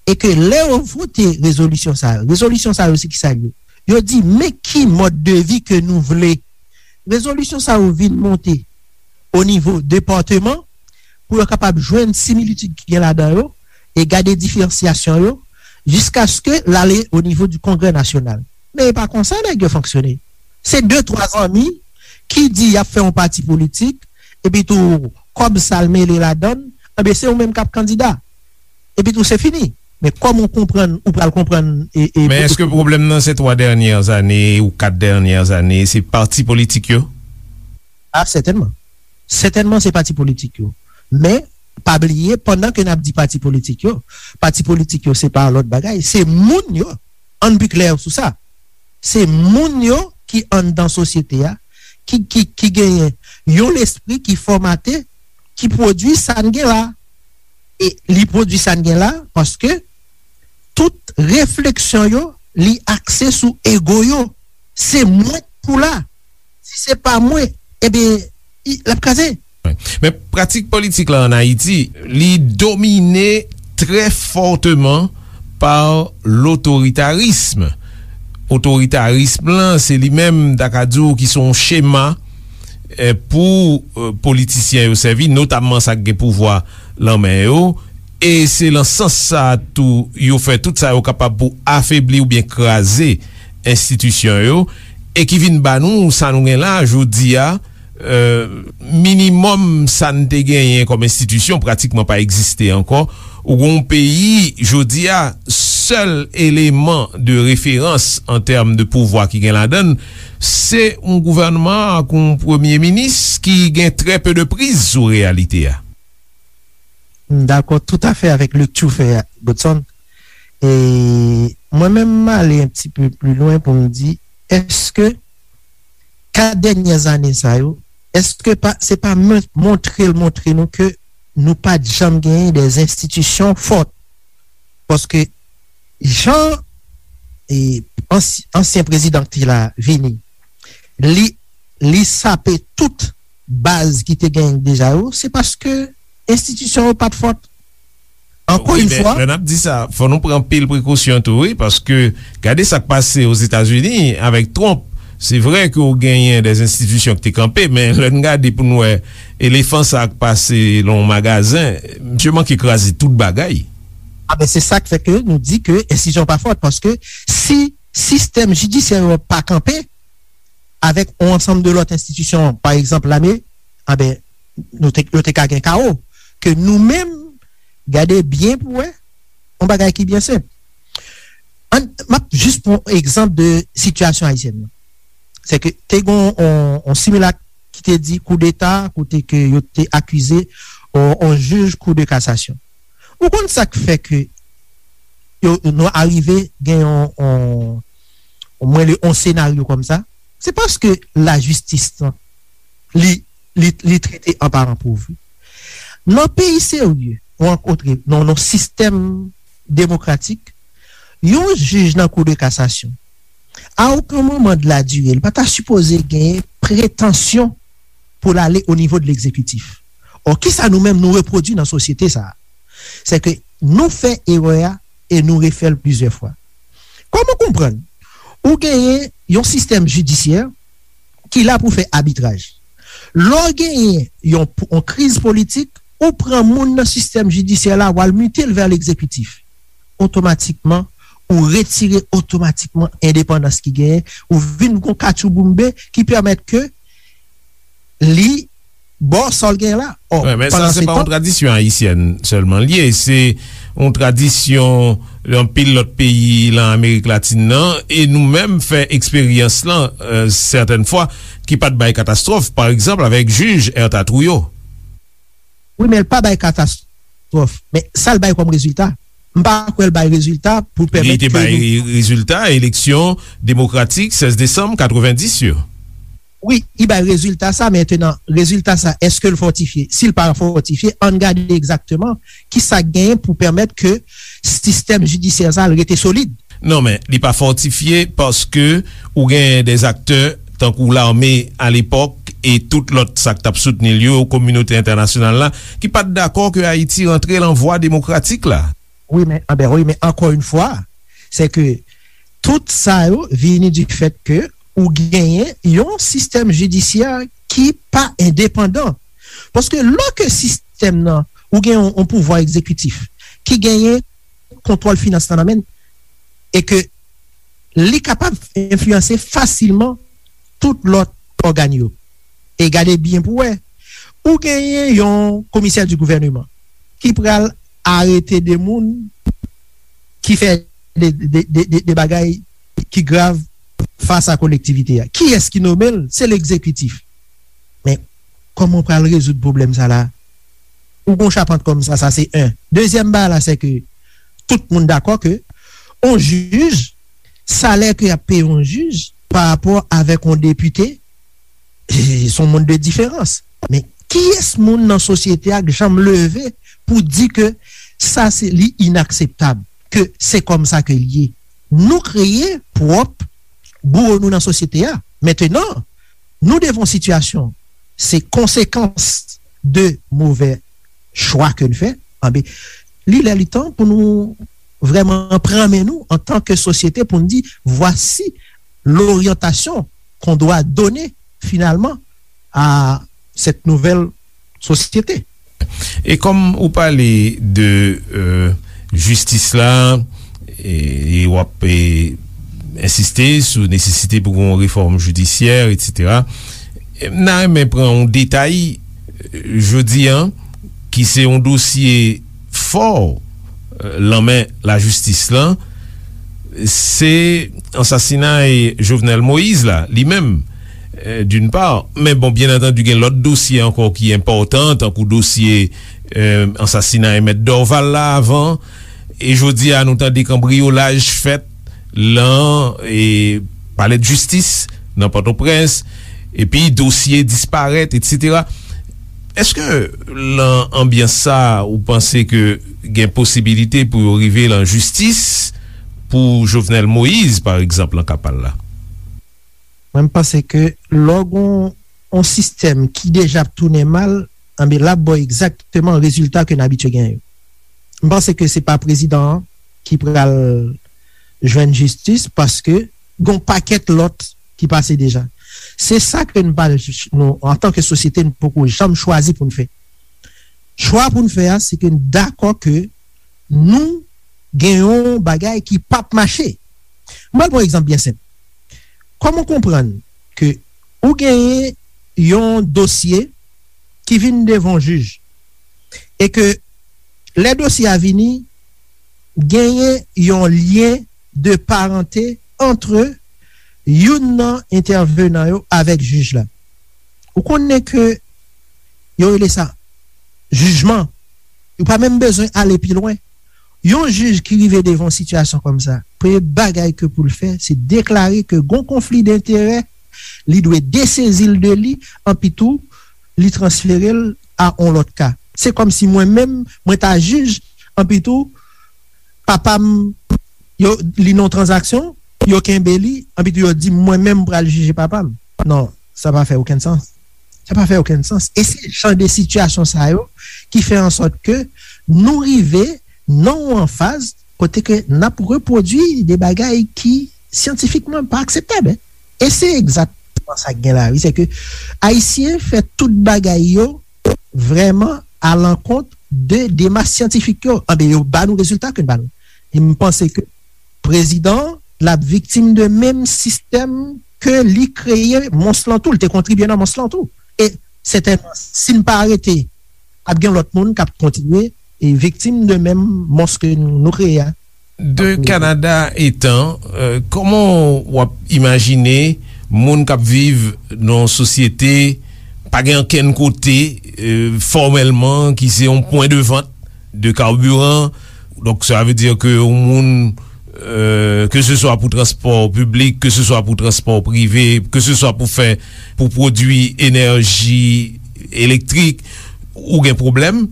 E ke lè yo vote rezolisyon sa yo, rezolisyon sa yo se ki sa yo? Yo di, men ki mòd de vi ke nou vle. Rezolisyon sa yo vin monte o nivo depatman pou yo kapab jwenn similitid ki gen ladan yo e gade diferansyasyon yo jiskaske l ale o nivo di Kongrè Nasyonal. Men e pa konsa nèg yo fonksyone. Se de, twa zanmi ki di y ap fè yon pati politik, epi tou kòb sa l mele ladan l, enben se ou menm k ap kandida. Epi tou se fini. Men kòman w konprann, ou pral konprann e, e, Men èske pwoblèm nan se twa dènyè zane ou kat dènyè zane, se pati politik yo? A, sètènman. Sètènman, se pati politik yo. Men, pa bliye, pandan ke n ap di pati politik yo, pati politik yo, se pa lòt bagay, se moun yo. Ann pi klè sou sa. Se moun yo ki anndan sosyete a, ki, ki, ki genyen yon lespri ki fòmate, ki pwodui sa n gen la. E li pwodui sa n gen la, paske tout refleksyon yo, li akse sou ego yo. Se mwen k pou la. Si se pa mwen, ebyen, l ap kraze. Men pratik politik la ann Ayiti, li domine trè fòteman pa lotoritarism. Otoritarism lan, se li menm, m ta ka di w, ki se yon chema, eh, pou, eh, politisyen yo sèvi, notamman sa k gen pouvwa lan men yo. E se lan sans sa a tou yo fè tout sa yo kapab pou afebli oubyen kraze enstitisyon yo, e ki vin ba nou sa nou gen la jodi a, eh, minimòm sa n te genyen kòm enstitisyon pratikman pa egziste ankò. Ou gen yon peyi, jodi a, sèl eleman de referans an tèm de pouvwa ki gen ladan l, se yon gouvènman ak yon premye minis ki gen trè pe de priz sou reyalite a. M dakò toutafè avèk lekti w fè a, Godson. E mwen menm, m ale yon ti pe pli lwen pou m di, èske kat dènyè zane sa yo, èske pa, se pa mon-, montre l montre nou ke nou pa t janm genyen de enstitisyon fò? Paske jan, e, ansy-, ansyen prezidan ki te la vini, li, li sape tout baz ki te genyen deja yo, se paske enstitisyon yo pa t fòt. Ankò yon fwa. Lè n ap di sa, fò nou pran anpil prekosyon tou, wi, paske gade sa k pase Ozetazini avèk Trump. Se vre ke w genyen de enstitisyon ki te kanpe, men lè n gade pou n wè elefan sa k pase lan yon magazen, misye manke kraze tout bagay. A ben, se sa k fè ke nou di ke enstitisyon pa fòt, paske si sistèm jidisyè yo pa kanpe, avèk yon ansanm de lòt enstitisyon, pa egzanp, lame, a ben, nou te, yo te ka gen kawo. Ke nou menm, gade byen pou wè, yon bagay ki byen senp. Ann, m ap jis pran egzanp de sitiyasyon ayisyèn nan. Se ke te gen yon, yon similak ki te di koudeta, kote ke yo te akize yon, yon jij kou de kasasyon. Ou konn sa k fè ke yo, nou arive gen yon, yon, mwen le on senaryo kòm sa, se paske lajistis lan, li, li, li trete an paran pov. Nan peyi serye, ou rankontre nan yon sistèm demokratik, yon jij nan Kou de Kasasyon, a okenn moman de la dire, li pa ta sipoze gen pretansyon pou l ale o nivo de legzekitif. Ò, kisa nou menm nou repwodui nan sosyete sa a? Se ke nou fè erè a e nou refè l plizyè fwa. Kòman konprann ou genyen yon sistèm jidisyè ki la pou fè abitraj? Lè w genyen yon, yon kriz politik, ou pran moun nan sistèm jidisyè la, w al mite l vè legzekitif. Otomatikman, ou retire otomatikman endepandans ki genyen, ou vin gon katchouboumbe ki pèmèt ke li ba w sa l gen la. Ò, Wi, men sa pandan se se pa yon tan, tradisyon ayisyèn sèlman l ye, se yon tradisyon anpil lòt peyi nan Amerik Latin nan, e nou menm fè eksperyans lan, euh, sètèn fwa, ki pa t bay katastwòf, pa egzanp, avèk jij Ertha Trouillot. Wi, men l pa bay katastwòf. Men sa l bay kòm rezilta, m pa kwè l bay rezilta pou Li pèmèt te ke bay nou re-, rezilta eleksyon demokratik sèz desanm katrevenndis yo. Wi, li bay rezilta sa, mentenan, rezilta sa, èske l fòtifye? Si l pa fòtifye, ann gade egzakteman kisa k genyen pou pèmèt ke sistèm jidisyè sa l rete solid. Non, men li pa fòtifye paske ou genyen dè aktè tankou lame alepòk e tout lòt sa k t ap soutni l yo, kominote entènasyonal la, ki pa t dakò ke Ayiti rantre lan vwa demokratik la. Wi, men, anben, wi, men ankò yon fwa, se ke tout sa yo vini du fait ke ou genyen yon sistèm jidisyè ki pa endepandan. Paske lè ke sistèm nan, ou gen yon, yon pouvwa egzekitif ki genyen kontwòl finans lan nan men l, e ke li kapab enfliyanse fasilman tout lòt ògàn yo. E gade byen pou wè, ou genyen yon komisè di gouvèneman ki pral arete de moun ki fè de, de, de, de, de bagay ki grav fas a kolektivite a. Kiyès ki nome l? Se legzekitif. Men, kòman w pral rezoud pwoblèm sa la? Ou gon chapant kòm sa, sa se en. Dezyèm bagay la, se ke tout moun dakò ke on jij, salè ke y ap peye on jij pa rapò avèk on depite, se on mond de diferans. Men kiyès moun nan sosyete a k janm leve pou di ke sa se, li inakseptab, ke se kòm sa ke l ye? Nou kreye pwòp bouwo nou nan sosyete a. Mentenan, nou devan yon sitiyasyon, se konsekans de movè chwa ke n fè. Anben, li lè li tan pou nou vrèman pran men nou antan ke sosyete pou n di, voici l'orientation qu'on doit donner finalement à cette nouvelle société. E kòm ou pale de, euh, jistis la, e, e w ap, e, ensiste sou nesesite pou gen yon refòm jidisyè, etsetera, m ta renmen pran yon detay, euh, jodi a, ki se yon dosye fò, euh, lan men lajistis lan, se ansasinay Jovenel Moïse la, li menm, euh, d'une part. Men bon, byen antandi, gen lòt dosye ankò ki enpòtan, tankou dosye, euh, ansasinay Mèt Dorval la avan. E jodi a, nou tande kanbriyolaj fèt lan, e, palè de jistis nan Pòtoprens, epi dosye disparèt, etsetera. Èske lan anbyans sa, ou panse ke gen posibilite pou yo rive lan jistis pou Jovenel Moïse, pa egzanp, lan ka pa l la? Mwen, m panse ke lè w gen yon sistèm ki deja ap tounen mal, anben, l ap ba w egzakteman rezilta ke n abitye genyen yo. M panse ke se pa prezidan an ki pral jwenn jistis, paske gen yon pakèt lòt ki pase deja. Se sa ke n pa, nou, antan ke sosyete, n poko janm chwazi pou n fè. Chwa pou n fè a, se ke n dakò ke nou gen yon bagay ki p ap mache. M pral pran yon egzanp byen senp. Kòman w konprann ke ou genyen yon dosye ki vin devan yon jij e ke lè dosye a vini, genyen yon lyen de parante ant youn nan entèvenan yo avèk jij la? Ou konnen ke yo rele sa jijman. Ou pa menm bezwen ale pi lwen. Yon jij ki rive devan yon sitiyasyon kòm sa, premye bagay ke pou l fè, se deklare ke gon konfli denterè, li dwe desezi l de li, anpi tou, li transfere l a yon lòt ka. Se kòm si mwen menm, mwen ta jij, anpi tou, papa m, yo, li nan yon tranzaksyon, yo kenbe li, anpi tou yo di m mwen menm m pral jije papa m. Non, sa pa fè okenn sans. Sa pa fè okenn sans. E se jan de sitiyasyon sa yo ki fè an sòt ke nou rive nan yon faz kote ke n ap repwodui de bagay ki syantifikman pa akseptab, en. E se egzakteman sa k gen la, wi. Se ke Ayisyen fè tout bagay yo vrèman alankont de demach syantifik yo. Anben, yo ba nou rezilta ke n ba nou. E m panse ke prezidan an, l ap viktim de menm sistèm ke li kreye mons lan tou. Li te kontribye nan mons lan tou. E sètènman, si n pa arete, ap gen lòt moun k ap kontinye e viktim de menm mons ke nou kreye a. De Kanada etan, euh, kòman w ap imajine moun k ap viv nan yon sosyete pa gen ankenn kote, euh, fòmèlman, ki se yon pwen de vant de carburant? Donk, sa vle di ke yon moun, euh, ke se swa pou transpò piblik, ke se swa pou transpò prive, ke se swa pou fè, pou pwodui enèji elektrik, ou gen pwoblèm.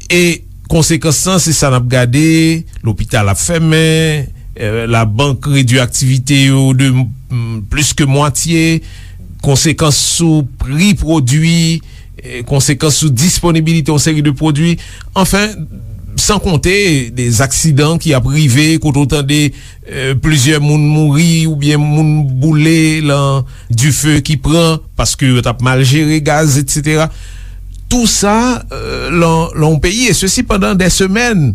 E konsekans lan, se sa n ap gade, lopital ap fèmen, eh, labank redui aktivite yo de, mm, plis ke mwatye, konsekans sou pri pwodui, eh, konsekans sou disponibilite yon seri de pwodui. Anfen, san konte de aksidan ki ap rive, kote w tande, eh, plizyè moun mouri oubyen moun boule lan dife ki pran paske yo t ap mal jere gaz, etsetera. Tou sa, euh, lan, lan yon peyi, e sesi pandan dè semèn.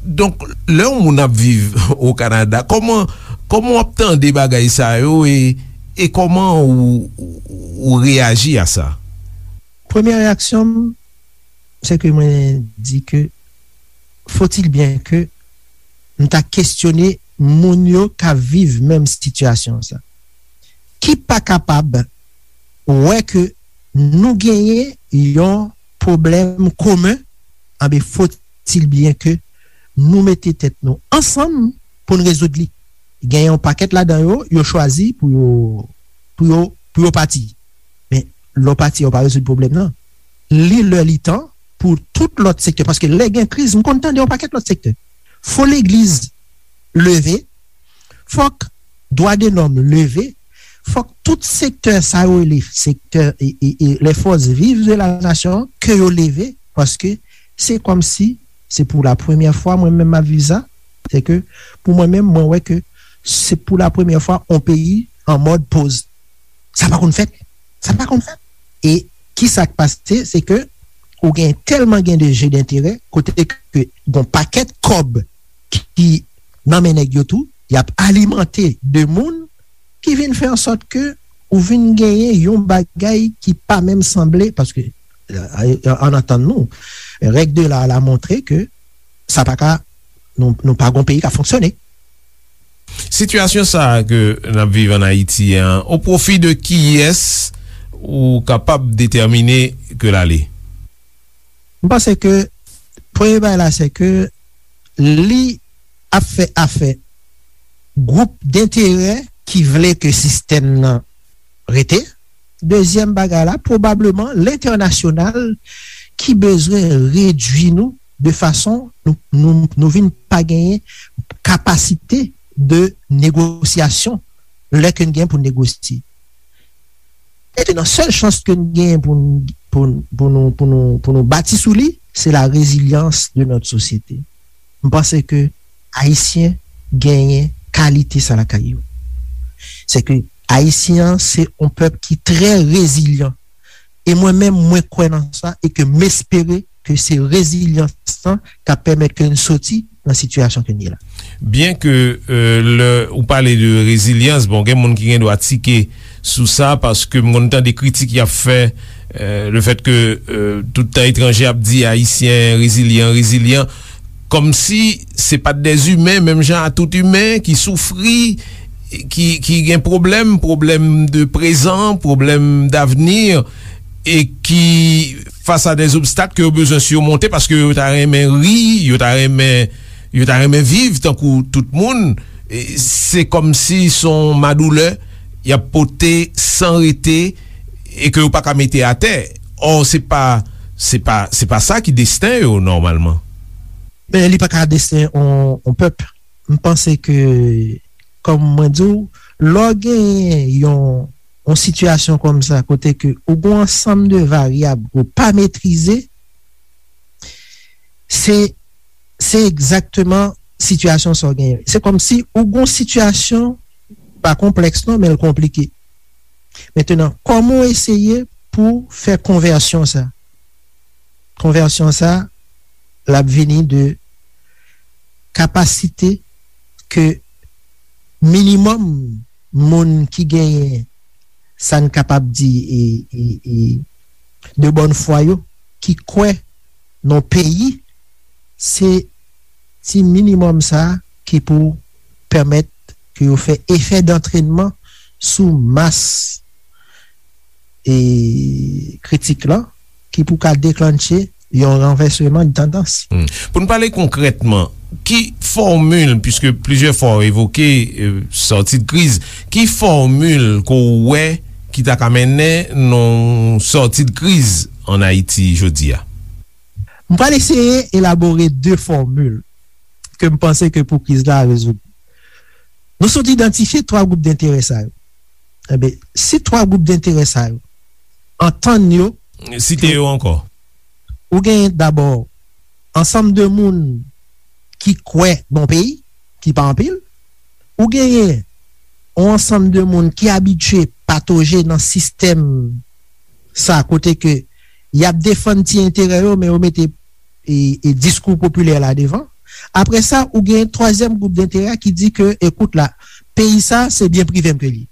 Donk, lè yon moun ap viv o Kanada, kòman, kòman w ap tande bagay sa yo e, e kòman ou, ou, ou reyaji a sa? Premyè reyaksyon m, se ke mwen di ke, faut-il bien que m ta kestyone moun yo k ap viv menm sitiyasyon sa, ki pa kapab wè ke nou genyen yon pwoblèm komen, anben, faut-il bien que nou mete tèt nou ansanm pou n rezoud li. Gen yon pakèt ladan yo, yo chwazi pou yo, pou yo, pou yo pati. Men, lè w pati, ou pa rezoud pwoblèm nan. Li lè li tan pou tout lòt sektè. Paske lè gen kriz, m konn tande yon pakèt lòt sektè. Fò legliz leve, fòk dwa de lòm leve, fòk tout sektè sa yo rele sektè e, e, e les forces vives de la nation, ke yo leve, paske se kòmsi se pou la premyè fwa mwen menm m ap viv sa, se ke pou mwen menm, mwen wè ke se pou la premyè fwa yon peyi an mòd poz. Sa pa konn fèt. Sa pa konn fèt. E ki sa k pase, se ke ou gen tèlman gen de je denterè, kote ke gon pakèt kòb ki nan men nèg yo tou, y ap alimante de moun ki vin fè an sòt ke ou vin genyen yon bagay ki pa menm sanble, paske, euh, ann antann nou, règ de la la montre ke sa pa ka, nou, nou pa gon peyi k ap fonksyone. Sitiyasyon sa a ke n ap viv ann Ayiti an, o pwofi de kiyès ou kapab detèmine ke l ale? M panse ke premye bagay la, se ke li ap fè afè gwoup denterè ki vle ke sistèm nan rete. Dezyèm bagay la, pwobableman lentènasyonal ki bezwen redui nou de fason nou, nou, nou vin pa genyen kapasite de negosyasyon lè ke n gen pou n negosye. Mentnan, sèl chans ke n genyen pou n, pou n, pou nou, pou nou, pou nou bati sou li, se la résilience de notre société. M panse ke Ayisyen genyen kalite sa lakay yo. Se ke Ayisyen an se yon pèp ki trè rezilyan. E mwen menm, mwen kwè nan sa e ke m espere ke se rezilyans lan k ap pèmèt ke n soti nan sitiyasyon ke n ye la. Byen ke, euh, lè ou pale de rezilyans, bon, gen moun ki gen dwa tike sou sa, paske m konn tande kritik y ap fè, euh, le fait que, euh, tout tan etranje ap di Ayisyen rezilyan, rezilyan, kòmsi se pa t dèzimen, menm jan a tout imen ki soufri, ki, ki gen pwoblèm, pwoblèm de prezan, pwoblèm davni, e ki fas a dè zobstak ke yo bezwen simonte, paske yo ta renmen ri, yo ta renmen Yo ta renmen viv tankou tout moun. E, se kòmsi se yon madoulè y ap pote san rete e ke yo pa ka mete atè. Ò, se pa, se pa, se pa sa ki desten yo, nòmalman. Men li pa ka desten yon, yon pèp. M panse ke, kòm mwen di w, lè w genyen yon, yon sitiyasyon kòm sa, kote ke ou gen yon ansanm de varyab ke w pa metrize, se, se egzakteman sitiyasyon sa w genyen. Se kòmsi ou gen yon sitiyasyon, pa konplèks non, men l konplike. Mentenan, kòman w eseye pou fè konvèsyon sa? Konvèsyon sa, l ap vini de kapasite ke minimòm moun ki genyen, sa n kapab di, e, e, e, de bòn fwa yo, ki kwè nan peyi, se ti minimòm sa ki pou pèmèt ke yo fè efè dantrenman sou mas e kritik lan, ki pou ka deklannche yon ranvèsman de tandans. Hmm. Pou n pale konkrètman, ki fòmil, piske plizyè fwa w evoke, e, sòti de kriz, ki fòmil ke w wè ki ta ka mennen nan yon sòti de kriz ann Ayiti jodi a? M pral eseye elabore de fòmil ke m panse ke pou kriz la rezoud. Nou sot idantifye twa gwoup denterè sa yo. Enben, si twa gwoup denterè sa yo antann yo, site yo ankò. Ou genyen dabò ansanm de moun ki kwè nan peyi, ki pa anpil. Ou genyen yon ansanm de moun ki abitye patoje nan sistèm sa, kote ke y ap defann ti enterè yo, men yo mete, e, e diskou popilè la devan. Apre sa, ou gen twazyèm gwoup denterè ki di ke, ekout la, peyi sa, se byen prive m ke li ye.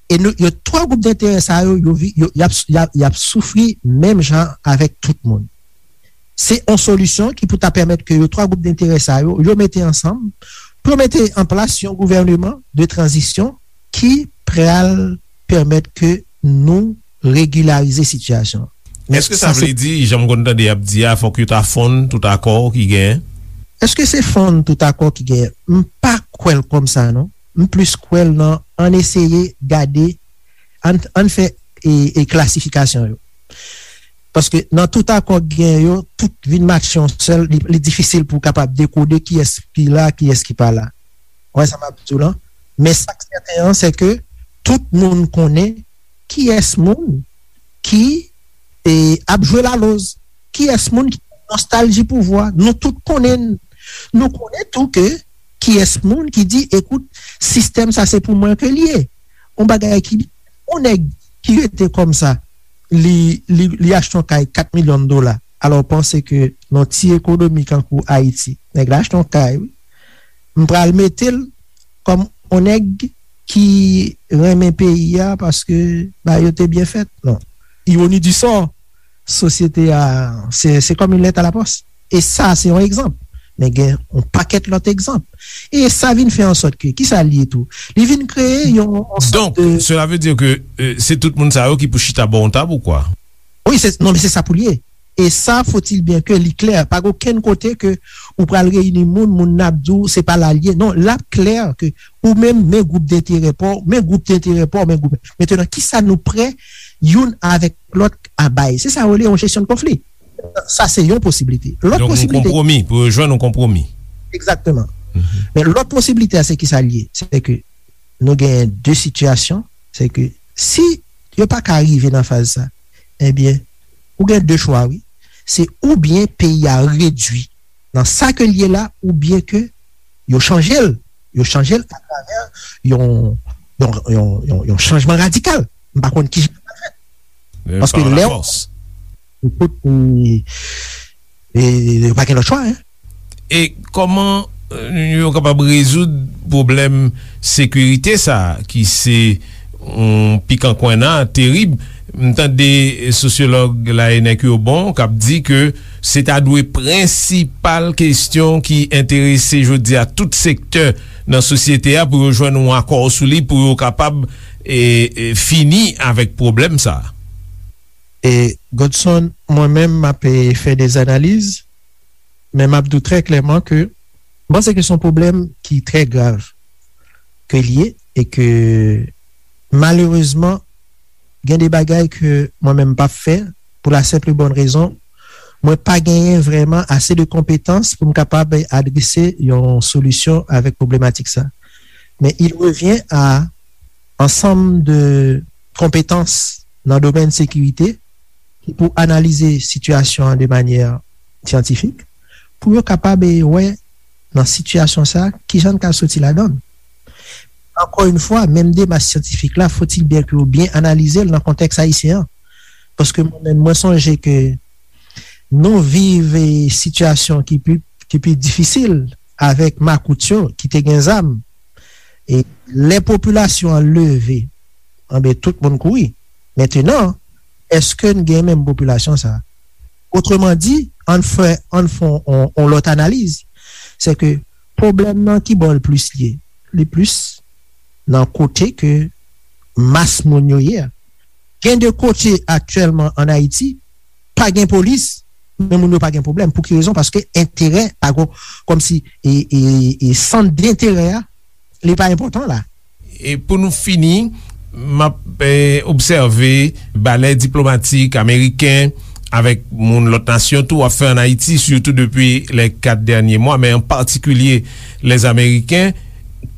E nou, yo, twa gwoup denterè sa yo, yo, vi- yo, y ap, y ap, y ap soufri menm jan avèk tout moun. Se yon solisyon ki pou ta pèmèt ke yo, twa gwoup denterè sa yo, yo mete ansanm pou yo mete an plas yon gouvèneman de tranzisyon ki pral pèmèt ke nou regilarize sitiyasyon. Men Èske sa sa se vle di, jan m konn tande y ap di a, fòk yo ta fonn tout akò ki genyen? Èske se fonn tout akò ki genyen? M pa kwè l kòm sa, non. M plis kwè l nan, ann eseye gade, ann, ann fè e, e klasifikasyon yo. Paske nan tout akò k gen yo, tout vin matche yon sèl, li, li difisil pou w kapab dekode kiyès ki la, kiyès ki pa la. Ou wè sa m ap di w lan? Men sa k sèten an, se ke tout moun konnen kiyès moun ki, e, ap jwe laloz, kiyès moun ki gen nostalji pouvwa. Nou tout konnen, nou konnen tou ke kiyès moun ki di, ekout, sistèm sa se pou mwen ke l ye. Yon bagay ki, yon nèg ki rete kòm sa, li, li, li achte yon kay kat milyon dola. Alò, w panse ke nan ti ekonomi kankou Ayiti, nèg la achte yon kay, wi. M pral mete l kòm yon nèg ki renmen peyi a paske bagay yo te byen fèt. Non. Ironi di sò, sosyete a, se, se kòm yon lèt a la pòs. E sa, se yon egzanp. Men gen yon pakèt lòt egzanp. E sa vin fè an sòt ke, ki sa l ye tou? Li vin kreye yon, yon sòt Donk, de sela vle di ke, e, se tout moun sa yo ki pou chita bò yon tab ou kwa? Wi, se, non, men se sa pou l ye. E sa, faut-il bien que li klè. Pa gen okenn kote ke ou pral reyini moun, moun nan ap di w se pa la l ye. Non, l ap klè ke ou menm, men gwoup denterè pa w, men gwoup denterè pa w, men gwoup. Mentenan, kisa nou prè youn avèk lòt a bay? Se sa yo rele yon jesyon de konfli. Sa se yon posiblite. Lòt Donk, yon posiblite konpwomi, pou yo jwenn yon konpwomi. Egzakteman. Mhm. Men lòt posiblite a, se kisa l ye? Se ke nou genyen de sitiyasyon, se ke si yo pa ka rive nan faz sa, ebyen, ou gen de chwa, wi. Se oubyen peyi a redui nan sa ke l ye la, oubyen ke yo chanje l. Yo chanje l atravè yon, yon, yon, yon, yon chanjman radikal. M pa konn kijan sa pral fèt. E, Paske pa lè lafòs. Tout, e, e, yo pa gen lòt chwa, en. E kòman, e, yo kapab rezoud pwoblèm sekirite sa a, ki se yon pikan kwenna terib? M tande sosyològ la, Enèk Yobon, k ap di ke se ta dwe prensipal kesyon ki enterese jodi a tout sektè nan sosyete a pou yo jwenn yon akò sou li, pou yo kapab, e, e, fini avèk pwoblèm sa a. E, Godson, mwen menm, m ap, e, fè de analiz, men m ap di w trè klèman ke M panse ke se yon pwoblèm ki trè grav ke l ye e ke malerezman, gen de bagay ke mwen menm m p ap fè pou la senp e bòn rezon, mwen pa genyen vrèman ase de konpetans pou m kapab adrese yon solisyon avèk pwoblematìk sa. Men il revient à ansanm de konpetans nan domèn sekirite ki pou analize sitiyasyon an de manyè syantifik, pou yo kapab wè nan sitiyasyon sa a kijan n ka soti ladan l. Encore une fois, menm demach syantifik la, faut-il bien ke yo byen analize l nan kontèks ayisyen an. Paske mwen menm, mwen sonje ke nou viv e sitiyasyon ki pi, ki pi difisil avèk makout yo ki te gen zam. E lè popilasyon an leve, anben, tout moun kouri. Mentenan, èske n gen menm popilasyon sa a? Otreman di, ann fè, ann fè yon, yon lòt analiz. Se ke pwoblèm nan ki bò l plis li ye? Li plis nan kote ke mas moun yo ye a. Gen de kote aktyèlman ann Ayiti, pa gen polis, men moun yo pa gen pwoblèm. Pou ki rezon? Paske enterè, pa gen, kòmsi, e, e, e sant denterè a, li pa enpòtan la. E pou nou fini, m ap, eh, obsève balè diplomatik ameriken avèk moun lòt nasyon tou ap fè ann Ayiti, sitou depi lè kat dènye mwa, men an patikilye lèzameriken,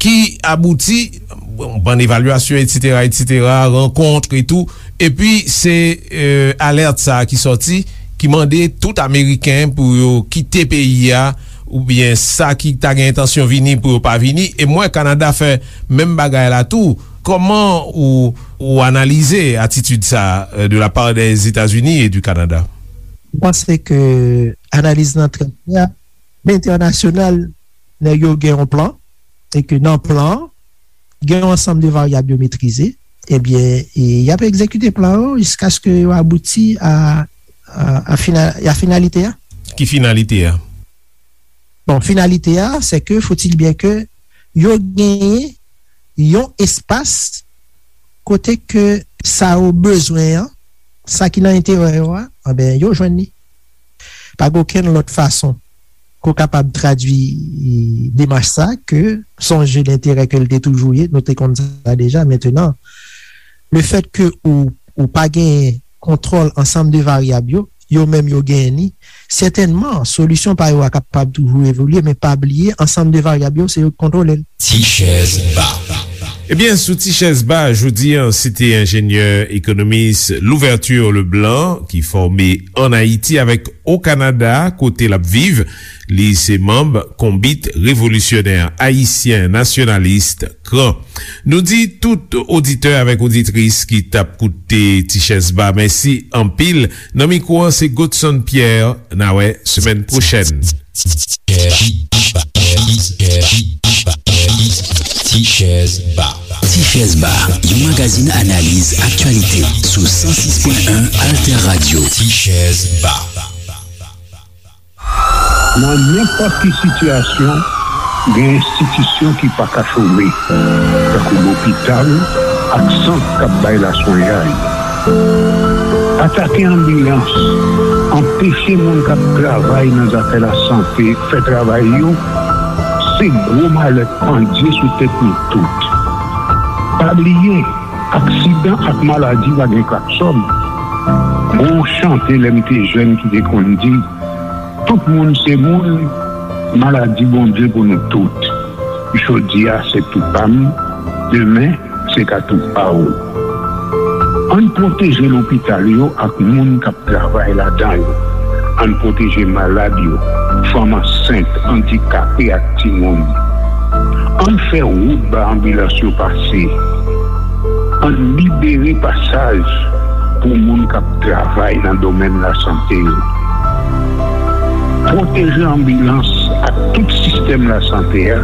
ki abouti, bon, bann evalyasyon, etsetera, etsetera, rankont e tou. Epi se, eh, alèt sa a ki sòti, ki mande tout ameriken pou yo kite peyi a, oubyen sa ki ta gen entansyon vini pou yo pa vini. E m wè Kanada fè menm bagay la tou. Kòman ou, ou analize atitid sa a, eh, de la part des États-Unis et du Canada? M panse ke analiz lan trè klè. Entènasyonal, nèg yo gen yon plan, e ke nan plan an, gen yon ansanm de varyab yo metrize, ebyen, e y ap egzekite plan yo jiskaske yo abouti a, a, a fina-, a finalite a. Ki finalite a? Bon, finalite a, se ke, faut-il bien ke yo genyen yon espas kote ke sa yo bezwen an, sa ki nan enterè yo a, anben, yo jwenn li. Pa gen okenn lòt fason ke w kapab tradui demach sa ke se yon je denterè ke l te toujou ye, nou te konn sa deja. Mentenan, lefèt ke ou, ou pa genyen kontwòl ansanm de varyab yo, yo menm yo genyen li, sètènman, solisyon pa yo a kapab toujou evolye, men pa bliye, ansanm de varyab yo, se yo k kontwole l. Ti chèz ba. Ebyen, sou Ti chèz ba, jodi a, se te enjenyè ekonomis Louverture Leblanc, ki fòme ann Ayiti avèk o Kanada, kote l ap viv. Li se manm Konbit Revolisyonè Ayisyen Nasyonalis, KRAN. Nou di tout oditè avèk oditris ki t ap koute Ti chèz ba mèsi anpil. Nan mikwo an, se Godson Pierre. N a wè semèn pwochèn. Ti chèz ba. Ti chèz ba, yon magazin analiz aktyalite sou san sis pwen en Alter Radio. Ti chèz ba. Nan nenpòt ki sitiyasyon, gen enstitisyon ki pa ka chome, tankou lopital ak sant k ap bay laswenyay. Atake anbilans, anpeche moun k ap travay nan zafè lasante fè travay yo, se gwo malèt pandye sou tèt nou tout. Pa bliye, aksidan ak maladi pa gen klaksòn. Gon chante lè m te jèn ki te konn di, tout moun se moun, maladi Bondye pou nou tout. Jodi a se tou pa m, demen se ka tou pa w. Ann pwoteje lopital yo ak moun k ap travay ladan yo. Ann pwoteje malad yo, fanm ansent, andikape ak timoun. Ann fè wout ba anbilans yo pase. Ann libere pasaj pou moun k ap travay nan domèn lasante yo. Pwoteje anbilans ak tout sistèm lasante a